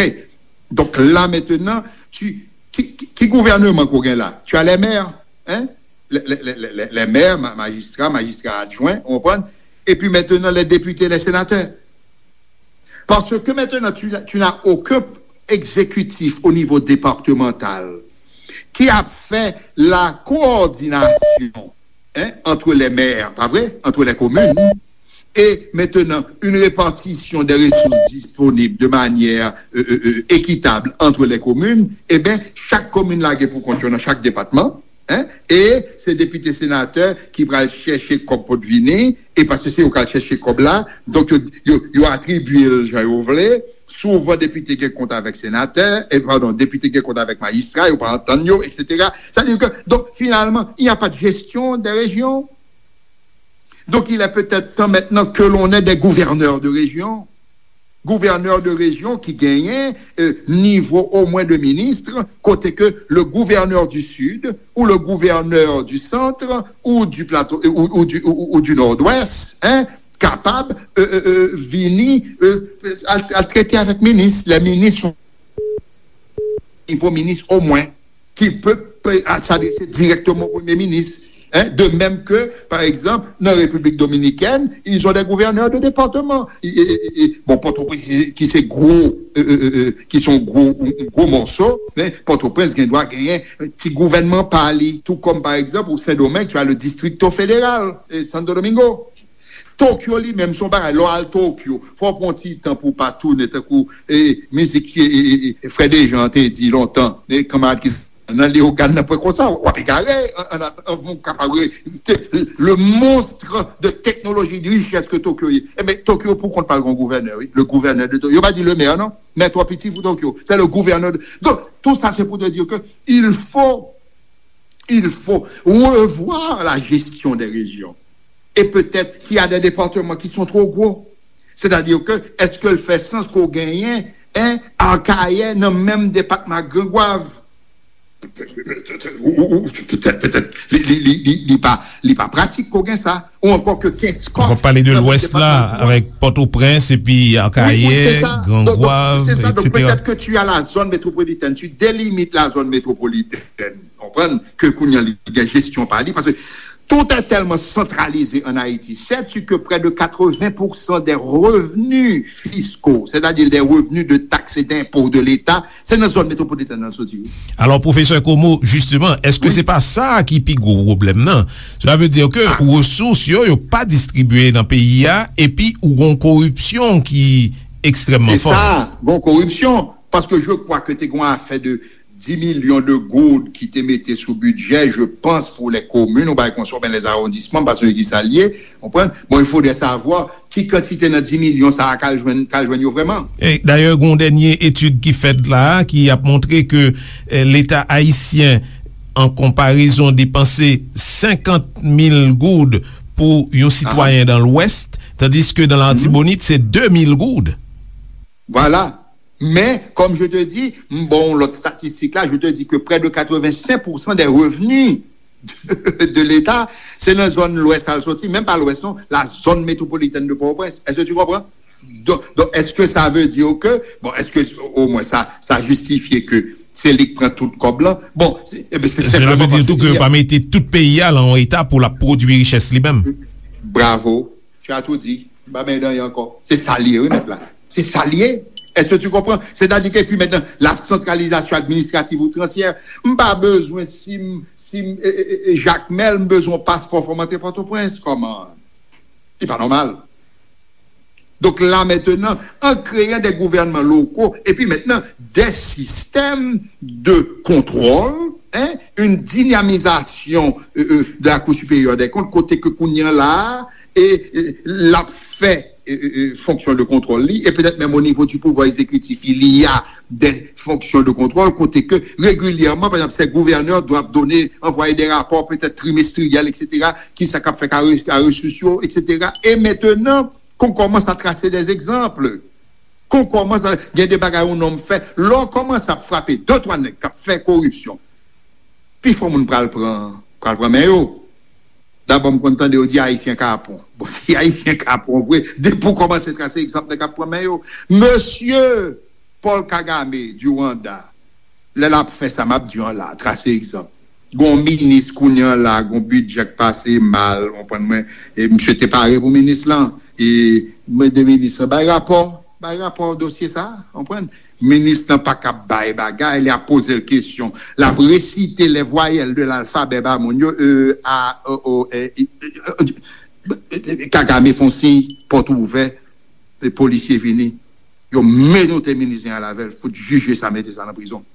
Donc là maintenant, tu, ki, ki, ki gouvènman ke w gen la? Tu as les maires, hein? Les, les, les, les, les maires, ma- magistrats, magistrats adjoints, ou konprann? Et puis maintenant, les députés, les sénateurs. Parce que maintenant, tu, tu n'as aucun exécutif au niveau départemental qui a fait la coordination, hein, entre les maires, pas vrai, entre les communes, et maintenant une répartition des ressources disponibles de manière euh, euh, euh, équitable entre les communes, eh bien, chaque commune lage pou kont yo nan chak depatman, hein, e se depite senatè ki pral chèche kòb pou t vini, e paske se yo k al chèche kòb la, donk yo, yo, yo atribye l jan yo vle. Souvan depite gen kont avèk senatè, e padon, depite gen kont avèk majistra, yo pa antann yo, et cetera. Sa di ke, donk, finalman, il n'y a pas de gestion des régions. Donc, il est peut-être temps maintenant que l'on ait des gouverneurs de région. Gouvènè de rejyon ki genyen euh, nivo omwen de minis, kote ke le gouvènè du Sud ou le gouvènè du Centre ou du Plateau ou, ou du, ou, ou du Nord-Ouest, hein, kapab euh, euh, euh, vini euh, al, al trete avèk minis. Lè minis yon nivo minis omwen ki pe, pe s'adresser directement au Premier ministre. Hein? De même que, par exemple, dans la République dominicaine, ils ont des gouverneurs de département. Et, et, et, et, bon, Port-au-Prince, qui c'est gros, euh, euh, euh, euh, qui sont gros, un, un gros morceau, mais Port-au-Prince, il doit gagner un petit gouvernement par lui. Tout comme, par exemple, au Saint-Domingue, tu as le Distrito Federal, et Santo Domingo. Tokyo li menm se yon bagay, lè w al Tokyo, fò w pran yon ti tan pou w pa tounen tankou e, mizik e, e, e, e, Frè Dejan te di lontan, e, kanmarad ki nan Leyogàn nan pwen konsa, w ap egare, an, an, an, an, w kapab re, te, le monstre de technologie, de richesse ke Tokyo ye. Enben, Tokyo pou kont pa l gen yon gouvènè, wi, le gouvènè de Tokyo. Yo pa di le maire, non, mè twò piti pou Tokyo, se le gouvènè de, donk, tout sa se pou te di ke il faut il faut revoir la gestion des régions. Et peut-être qu'il y a des départements qui sont trop gros. C'est-à-dire que, est-ce que l fè sans ke w genyen, hein, Akayè nan menm depatman ak Grangwav? Ou, ou, ou, petèt, petèt, li, li, li, li, li pa, li pa pratik ke w gen sa. Ou ankò ke Kenskòf. W ap pale de Lwès la, avèk Pòtoprens, epi Akayè, Grangwav, et cetera. Donk, petèt ke tu as la zone métropolitaine, tu délimites la zone métropolitaine. Konprann ke kounye a li gen jesyon pa li, paske tout est tellement centralisé en Haïti. Sais-tu que près de quatre-vingts pour cent des revenus fiscaux, c'est-à-dire des revenus de taxes et d'impôts de l'État, se nan zòn metwopolitèn nan l soti, wi. Alò, pwofesè Comeau, jisteman, èske se pa sa ki pi gwo pwoblèm nan? Cela veut dire que resous yo, yo pa distribiye nan peyi a, epi ou gon koripsyon ki ekstrèmman fò. Se sa, gon koripsyon, paske je crois que te gon afè de dix millions de goud ki te mete sou bidjè, je pense, pour les communes, ou bagay konsa, oubyen les arrondissements, m pa sonje ki sa l ye, konprann? Bon, il faudrait savoir ki kantite nan dix milyon sa a k al jwenn, k al jwenn yo vrèman. E, dayè, gen yon dènye etid ki fèt la a, ki ap montre ke, eh, Leta ayisyen, an konparezon, depanse senkant mil goud pou yon sitwayen dan Lwès, tandiske dan Latibonit, se de mil goud. Voilà. Men, comme je te dis, m ba w lòt statistik la, je te dis que près de quatre-vingt-cinq pour cent des revenus de, de l'État, se nan zòn Lwès al soti, menm pa Lwès non, la zone métropolitaine de Port-au-Prince. Est-ce que tu comprends? Donk, donk, èske sa vle di ke, bon, èske omwen sa, sa jistifye ke se li k pran tout kòb lan? Bon, se, enben, se senpleman paske... Cela veut dire tou ke yo pa mete tout peyi a lan yon eta pou l ap pwodui richès li menm. Bravo. Tu as tout dit. M pa benyen dan anyen ankò. Se sa l ye, wi, mèt la. Se sa l ye. Est-ce que tu comprends? C'est-à-dire que, et puis maintenant, la centralisation administrative outrancière. M pa bezwen, si m, si m, e, e, e, Jakmèl, m bezwen yon paspò, fò m antre Pòtoprens. Kòman? Li pa nòmal. Donc là maintenant, en créant des gouvernements locaux, et puis maintenant des systèmes de contrôle, hein, une dynamisation euh, euh, de la Cour supérieure des comptes, kote ke kounye a la, e, e l ap fè e, e, e, fonksyon de kontwòl li, e petèt menm o nivo di pouvwa egzekitif, il y a des fonctions de contrôle, kote ke regilyèman, pa egzanp, ces gouverneurs doivent donner, envoyer des rapports peut-être trimestriels, et cetera, ki sa k ap fèt ak resous yo, et cetera. E mentnan, qu'on commence à tracer des exemples. Qu'on commence à, gen de bagay yon nonm fè, lè w kòmanse ap frape de twa nèg k ap fè koripsyon, pifò moun pral pran, pral pran men yo. Dabò, m konn tande yo di Ayisyen kapon. Bon, si Ayisyen kapon vre, depi w kòmanse trase egzanp nèg k ap pran men yo. Mesye Paul Kagame du Rwanda, lè l ap fè sa m ap di w an la, trase egzanp. Gon minis kounye an la, gon bidjè k pase mal, w konprann mwen, e misye te pare pou minis lan. E mande minis lan bay rapò, bay rapò dosye sa, w konprann? Minis lan pa kab bay bagay, li ap poze l kesyon. L ap resite les voyelles de l'alphabet ba moun yo, e, a, o, o, e, e, e, e, Kagame fè yon siy, pòt ouvè, e polisye vini. Yo menote minis lan avè l, fout jije sa, mete sa nan prizon.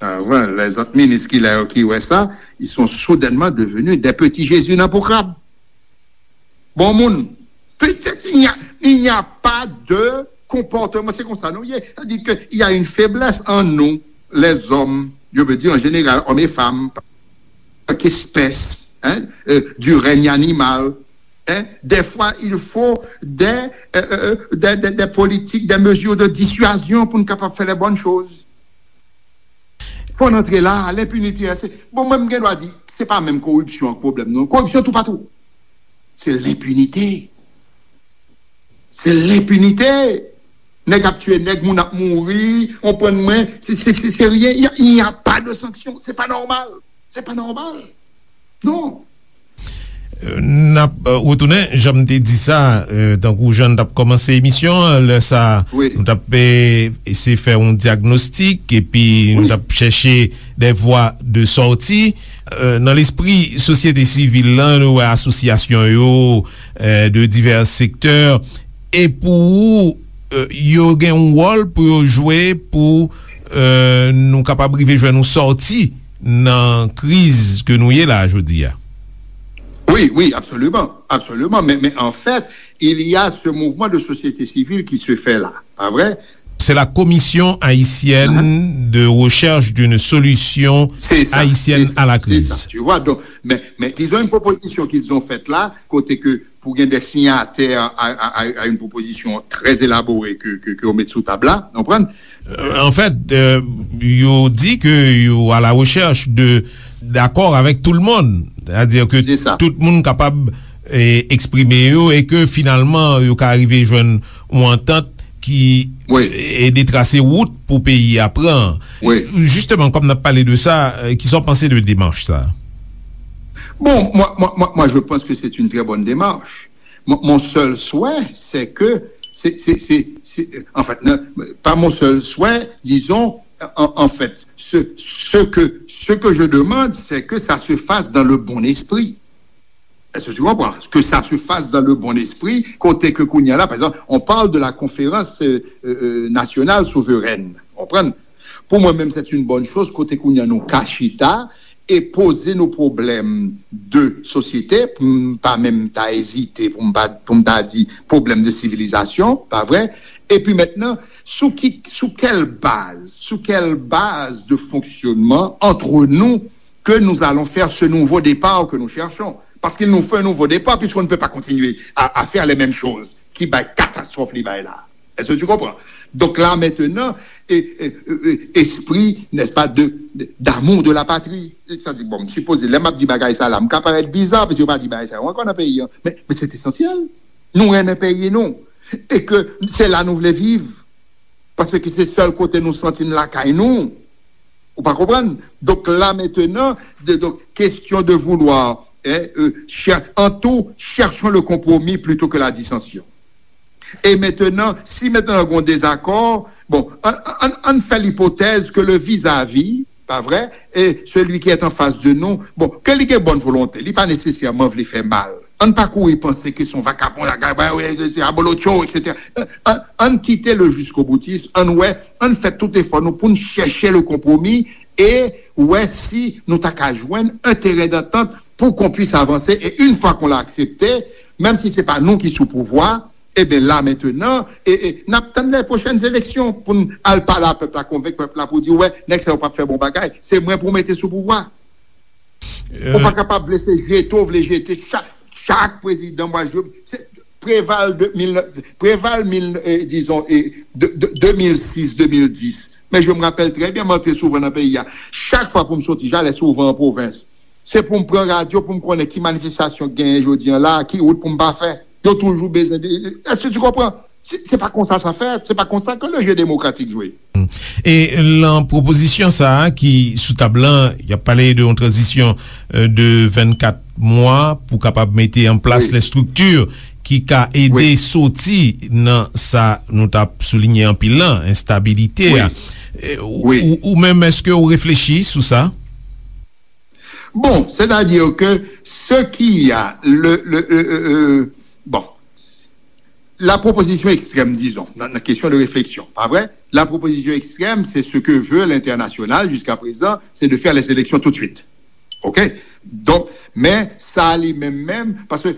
Ah, ouais, les autres ministres ki la yo ki wè sa, ils sont soudainement devenus des petits Jésus nan po krab. Bon moun, il n'y a, il n'y a pas de comportement, c'est comme ça, non? C'est-à-dire qu'il y a une faiblesse en nous, les hommes, je veux dire en général, hommes et femmes, en tant qu'espèce, hein, euh, du règne animal, hein, des fois, il faut des, euh, euh, des, des, des politiques, des mesures de dissuasion pour nous capables de faire les bonnes choses. Fò n antre la, lenpinite a, se, bon, mwen, m gen dwa di, se pa menm koripsyon an k pwoblèm, non. Koripsyon toupatou. Se lenpinite. Se lenpinite. Nèg ap tiye nèg, moun ap mouri, w konprann mwen, se, se, se, se rien. Il y a, il n'y a pas de sanction. Se pa nòmal. Se pa nòmal. Non. N ap retounen, jan m te di sa, tankou jan n t ap kòmanse emisyon an, lè sa a, nou t ap eseye fè yon dyagnostik, epi nou t ap chèche des voies de sortie. Nan lespri sosyete sivil lan, nou wè asosyasyon yo de divès sektè, e pou ou, yo gen yon wòl pou yo jwe pou nou kapab rive jwenn yon sòti nan kriz ke nou ye la jodi a. Oui, oui, absolument, absolument. Mais, mais en fait, il y a ce mouvement de société civile qui se fait là, pas vrai? C'est la Commission haïtienne de recherche d'une solution haïtienne à la crise. Tu vois, donc, mais, mais ils ont une proposition qu'ils ont faite là, côté que pour gagner des signataires à, à, à une proposition très élaborée que, que, que vous mettez sous table là, vous comprenez? Anfèt, yo di ke yo à la recherche de d'accord avec tout le monde, c'est-à-dire que tout moun kapab eksprime yo e ke finalman yo ka rive jwenn yon antant ki ede trase wout pou peyi a pran. Jisteman, kòm n ap pale de sa, kisa w panse de demach sa? Bon, moi, moi, moi, moi, je pense que c'est une très bonne démarche. Mon, mon seul souhait, c'est que, c'est, c'est, c'est, c'est, en fait, non, pas mon seul souhait, disons, en, en fait, ce, ce que, ce que je demande, c'est que ça se fasse dans le bon esprit. Est-ce que tu comprends? Que ça se fasse dans le bon esprit, côté que Kounia là, par exemple, on parle de la conférence euh, euh, nationale souveraine. Comprends? Pou mwen menm, c'est une bonne chose, kote kounye a nou ka chita e poze nou pwoblèm de sosyete, pou m pa menm ta ezite, pou m pa, pou m ta di pwoblèm de sivilizasyon, pa vre? Epi mentnan, sou ki, sou kèl baz, sou kèl baz de fonksyonman antre nou ke nou alon fè se nouvo depa ke nou chèchon? Paske nou fè nouvo depa, piske nou ne pe pa kontinye a, a fè le menm choz ki bay katastwòf li bay la. Est-ce que tu comprends? Donc là maintenant, et, et, et, esprit, n'est-ce pas, de, de, d'amour de la patrie. Sa di, bon, m sipoze, lè m ap di bagay sa la, m ka parèt biza, paske yo pa di bagay sa yo ankò nan peyi an. Men, men se esansyèl. Nou renmen peyi nou. E ke se la nou vle viv. Paske se sèl kote nou santi n lakay nou. Ou pa konprann? Donk la mentnan, de, donk, question de vouloir, hein, euh, cher, en tout, cherchons le compromis plutôt que la dissension. E mentnan, si mentnan gen yon dezakò, bon, ann, ann, ann fè lipotèz ke le vis-à-vis, pa vre, e celui qui est en face de nous, bon, ke li gen bòn volonte, li pa nesesèman vle fè mal. Ann pa kouri panse ke se yon vakabon, la, la, la, la, abolotcho, et cetera. Ann, ann kite le jiskoboutism, ann wè, ann fè tout efò nou pou n chèche le konpwomi e wè si nou ta ka jwenn un terrain d'entente pour qu'on puisse avancer. Et une fois qu'on l'a accepté, menm si se pa nou ki sou pouvwa, e ben la mentenan, e, e, n ap tann les prochaines élections pou n al pale a pèp la, konvenk pèp la pou di, wè, nèg sa yo p ap fè bon bagay. Se mwen pou mete sou pouvwa. Ou pa kapab vle se jete w vle jete chak, chak prezidan, mwa je, se, Preval de mil, Preval mil, eh, dizon, eh, de, de, de mil sis, de mil dis. Men je me rappelle très bien, m antre souvan nan peyi a. Chak fwa pou m soti, j'allais souvent en province. Se pou m pran radyo, pou m konnen ki manifestasyon k genyen jodi an la, ki wout pou m pa fè. Yo toujou bezwen de, est-ce que tu comprends? Se, se pa konsa sa fèt, se pa konsa ke le jeu démocratique jwe. E lan pwopozisyon sa a ki sou tab lan, y ap pale de yon tranzisyon, euh, de vennkat mwa pou kapab mete an plas, wi, lè estrikti ki ka ede, wi, soti nan sa nou t ap soulinye anpil lan, enstabilite a. Wi. E, ou, wi, ou, ou menm, èske ou reflechi sou sa? Bon, c'est-à-dire que ce qui a le, le, le, euh, euh, bon, la proposition extrême, disons, nan, nan kesyon de refleksyon, pa vre? La proposition extrême, c'est ce que veut l'international jusqu'à présent, c'est de faire les élections tout de suite. OK? Donk, men sa li menm menm, paske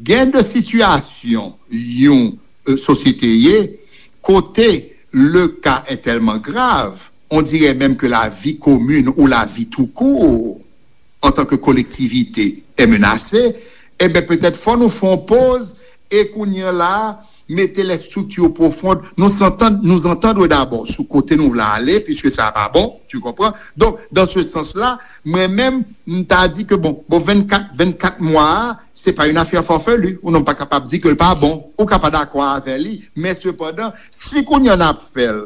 gen de sitiyasyon yon, euh, sosyete ye, kote le cas est tellement grave, on dirait même que la vie commune ou la vie tout court, en tant que collectivité, est menacée, e ben petèt fò nou fè yon poz e kounye a la, mete les structures profondes, nous entendre, nous entendre d'abord sou kote nou vle ale, puisque sa pa bon, tu comprends? Donc, dans ce sens-là, mwen menm, m ta di ke bon, bon, vennkat, vennkat mwa a, se pa yon afè farfelu, ou non pa kapab di ke l pa bon, ou ka pa dakò avè li, men sepandan, si kounye a n ap fè l,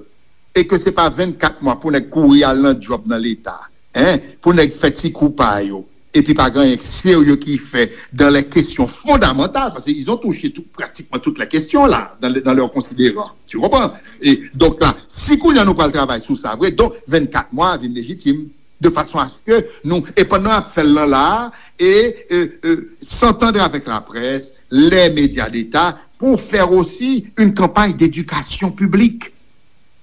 e ke se pa vennkat mwa pou nèg kouri al nan djòb nan Leta, en, pou nèg fè ti kou pa yo, epi pa gen anyen serye ki fè dans les questions fondamentales, parce qu'ils ont touché tout, pratiquement toutes les questions là, dans, le- dans leurs considérants. Tu comprends? E donk la, si kounye a nou pral travay sou sa vre, donk vennkat mwa vin lejitim, de fason a ce que nou, e pandan n ap fè l lan la, e, e, e, s'entendre avec la presse, les médias d'État, pour faire aussi une campagne d'éducation publique,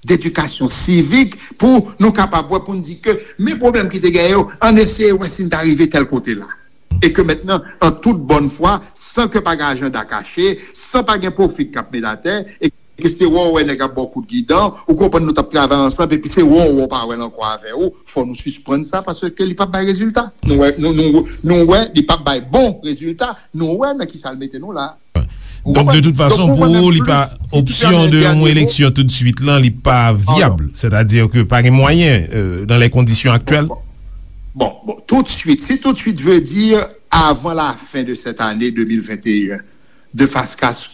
d'éducation civique, pou nou kapab wè, pou n di ke men pwoblèm ki te genyen yo, ann eseye wè si n ta rive tèl kote la. E ke mentnan, an tout bòn fwa, san ke pa gen ajanda kache, san pa gen pwofi k ap met atè, e ke se wè w wè nèg ap ba w kout gidan, ou konprann nou t ap travay ansanm, epi se wè w wè w pa wè l ankò avè w, fò nou sispann sa, paske li p ap bay rezilta. Nou wè, nou, nou, nou wè, li p ap bay bon rezilta, nou wè nan kisa l mete nou la. Ou konprann? Donk, de tout fason, pou ou, li pa, opsyon de yon eleksyon tout de suite lan, li pa vyab. Sètadi ke pa gen mwayen, euh, dans les conditions actuelles. Bon, bon, bon, tout de suite, si tout de suite veut dire avant la fin de cette année deux mille vingt et un, de, fa-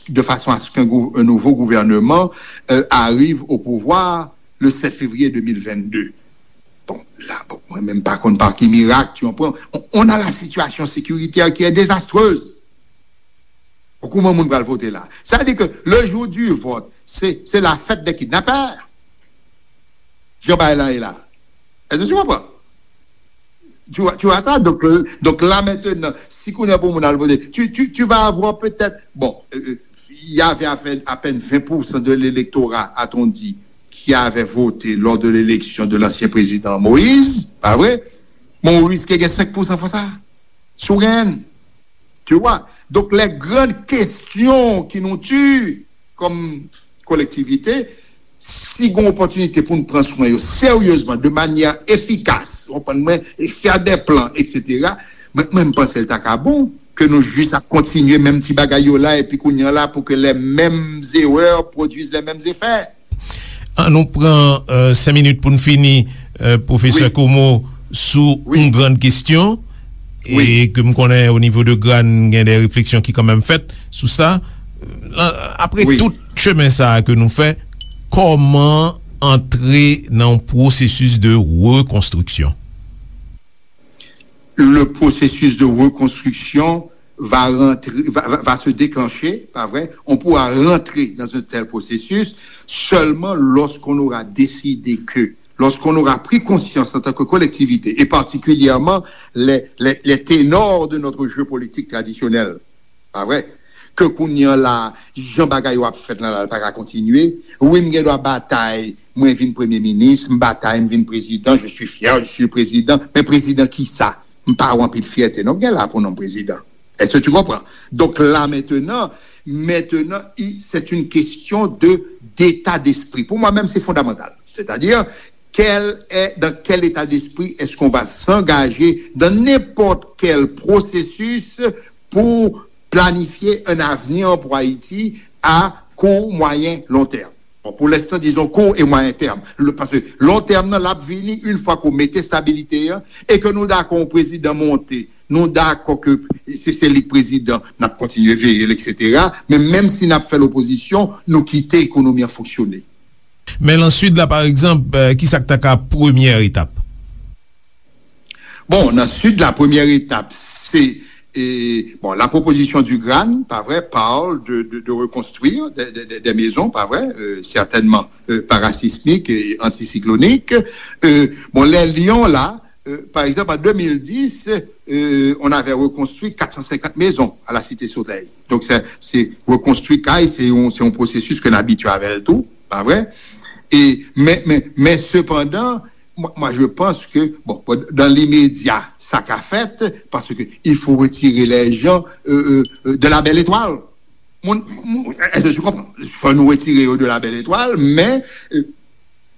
de façon à ce qu'un gou- un nouveau gouvernement, euh, arrive au pouvoir le sept février deux mille vingt-deux. Bon, la, bon, mwen menm pa konn pa ki mirak, tu comprends? On, on a la situation sécuritaire qui est désastreuse. Bon, kouman moun pral vote la? Sa vle di ke le jour du vote, se, se la fête des kidnappeurs. Jan bagay la ye la. Est-ce que tu comprends? Tu vois, tu vois ça? Donc, euh, donc là maintenant, si kounye a pou moun al vote, tu, tu, tu vas avoir peut-être, bon, euh, euh, il y avait à peine, à peine vingt pour cent de l'électorat, a-t-on dit, qui avait voté lors de l'élection de l'ancien président Moïse, pa vre? Bon, ou riske gen senk pou san fwa sa. Si w genyen l. Tu vois? Donk, les grandes questions qui nous tuent comme collectivité, si gen opòtinite pou n pran swen yo seryezman, de manyè efikas, w konprann mwen, e fè de plan, et cetera, mwen, mwen, m panse l ta ka bon ke nou jis ap kontinye menm ti bagay yo la, epi kounye a la, pou ke les mêmes erreurs produisent les mêmes effets. An nou pran, euh, senk minit pou n fini, euh, pwofesè Komo, sou yon grann kesyon, e ke m konnen o nivo de Gran gen de refleksyon ki kanmenm fèt sou sa. Euh, apre tout chemen sa a ke nou fè, kòman antre nan yon pwosesis de rekonstriksyon? Le processus de reconstruction va rentrer, va, va, va se déclencher, pas vrai? On pourra rentrer dans un tel processus seulement lorsqu'on aura décidé que, lorsqu'on aura pris conscience en tant que collectivité, et particulièrement les, les, les ténors de notre jeu politique traditionnel, Pa vre? Ke kounye a la, jan bagay yo ap fèt la, la, l pa ka kontinye. Wi, m gen dwa batay, mwen vin premye minis, m batay, m vin prezidan, je suis fier, je suis le président. Men prezidan ki sa? M pa wè anpil fyète, non, m gen la pou non prezidan. Est-ce que tu comprends? Donc là, maintenant, maintenant, i- c'est une question de, d'état d'esprit. Pour moi-même, c'est fondamental. C'est-à-dire, quel est, dans quel état d'esprit est-ce qu'on va s'engager dans n'importe quel processus pour planifier un avenir pour Haïti à court, moyen, long terme. Bon, pour l'instant, disons court et moyen terme. Le, parce que long terme, nan, l ap vini une fois qu'on mete stabilité, hein, et que nou dakò yon prezidan monte, nou dakò ke se, se li k prezidan, n ap kontinye veye l, et cetera. Men menm si n ap fè lopozisyon, nou kite ekonomi an fonksyone. Men nan Sid la, pa egzanp, euh, ki sa k ta ka premyè etap? Bon, nan Sid la, premyè etap, se, eh, bon, la proposition du GRAN, pas vrai, parle de, de, de reconstruire des, des, des, des maisons, pas vrai, euh, certainement euh, parasismiques et anticycloniques. Euh, bon, les lions, là, euh, par exemple, en deux mille dix, euh, on avait reconstruit quatre cent cinquante maisons à la Cité Soleil. Donc, c'est, c'est reconstruit kay, c'est un, c'est un processus que nous habituons avec tout, pas vrai? Et, mais, mais, mais cependant, moi, moi, je pense que, bon, dans l'immédiat, ça qu'a fait, parce que il faut retirer les gens euh, euh, de la belle étoile. Moun, moun, èske tu comprends? Fò nou retire yo de la belle étoile, men euh,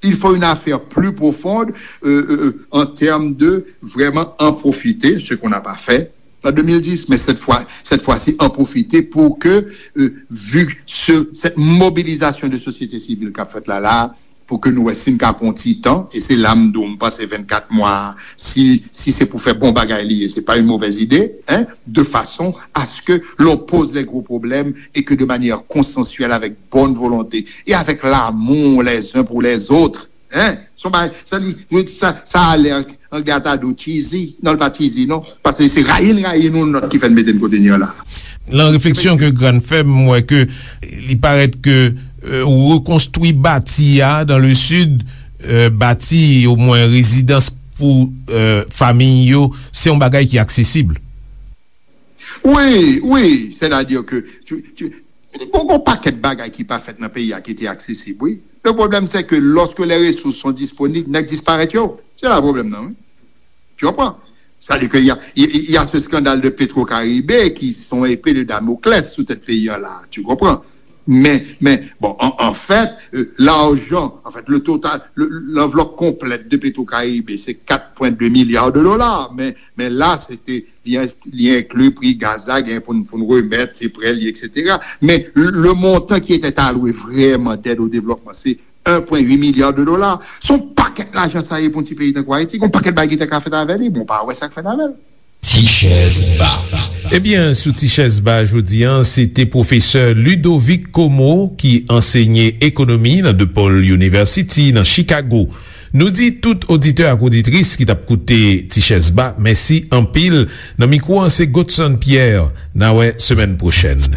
il faut une affaire plus profonde euh, euh, en termes de vraiment en profiter, ce qu'on n'a pas fait en deux mille dix, mais cette fois, cette fois-ci, en profiter pour que, euh, vu ce, cette mobilisation de société civile qu'a faite là, là, pou ke nou wè si n ka pran yon ti tan, e se la m di w, m panse vennkat mwa, si, si se pou fè bon bagay li ye, se pa yon movèz ide, hein, de façon à ce que l'on pose les gros problèmes et que de manière consensuelle, avec bonne volonté et avec l'amour les uns pour les autres, hein, son bagay, sa li, sa, sa a l'air Anglè ta di w cheesy. Non, l pa cheesy, non. Paske se rayi n rayi nou, nòt ki fè n mete n kote n ye la. Nan refleksyon ke GRAN fè, m wè ke li parèt ke euh, rekonstwi bati a dans le sud, euh, bati omwen rezidans pou euh, fanmi yo, se yon bagay ki aksesib. Wi, wi, sètadi ke tu, tu, gon, gon pakèt bagay ki pa fèt nan peyi a ki te aksesib, wi. Le problème, c'est que lorsque les ressources sont disponibles, nèg disparèt yo. Se la pwoblèm nan, wi. Tu comprends? C'est-à-dire qu'il y a, il y a ce scandale de Petro-Caribe qui sont épée de Damoclès sous tête pays là, tu comprends? Mais, mais bon, en, en fait, euh, l'argent, en fait, le total, le- l'enveloppe complète de Petro-Caribe, c'est quatre point deux milliards de dollars. Mais, mais là, c'était, il y a, il y a inclus prix gaz, là, il y a pour, pour nous remettre, c'est prêts, et cetera. Mais le, le montant qui était alloué vraiment d'aide au développement, c'est un point huit milliard de dollars. Se yon pakèt lajan sa ye pou yon ti peyi tankou Ayiti. Gon pakèt bagay ki te ka fèt avè li, bon, pa wè sa k fèt avè l. Ti chèz ba. Ebyen, sou Ti chèz ba jodi a, se te pwofesè Ludovic Como ki ansenye ekonomi nan DePaul University nan Chicago. Nou di tout oditè ak oditris ki t ap koute Ti chèz ba, mèsi anpil. Nan mikwo an, se Godson Pierre. N a wè semèn pwochèn.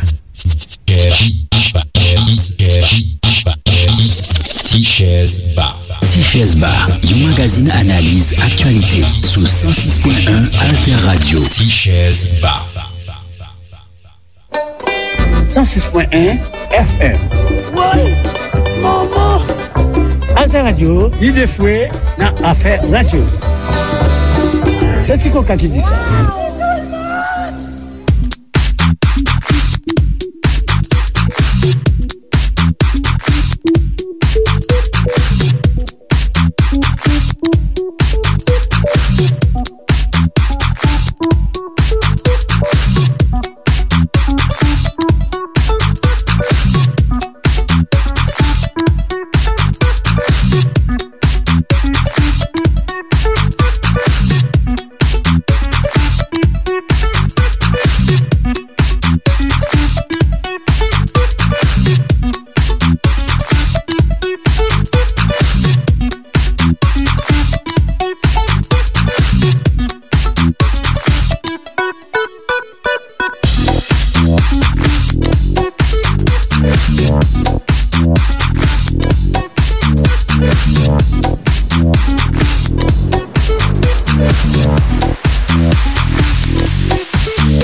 Ti chèz ba. Ti chèz ba, yon magazin analiz aktyalite sou san sis pwen en Alter Radio. Ti chèz ba. San sis pwen en F M. Woy! Manman! Alter Radio, lide fwe nan afè radyo. Se Ti Koka ki di sa.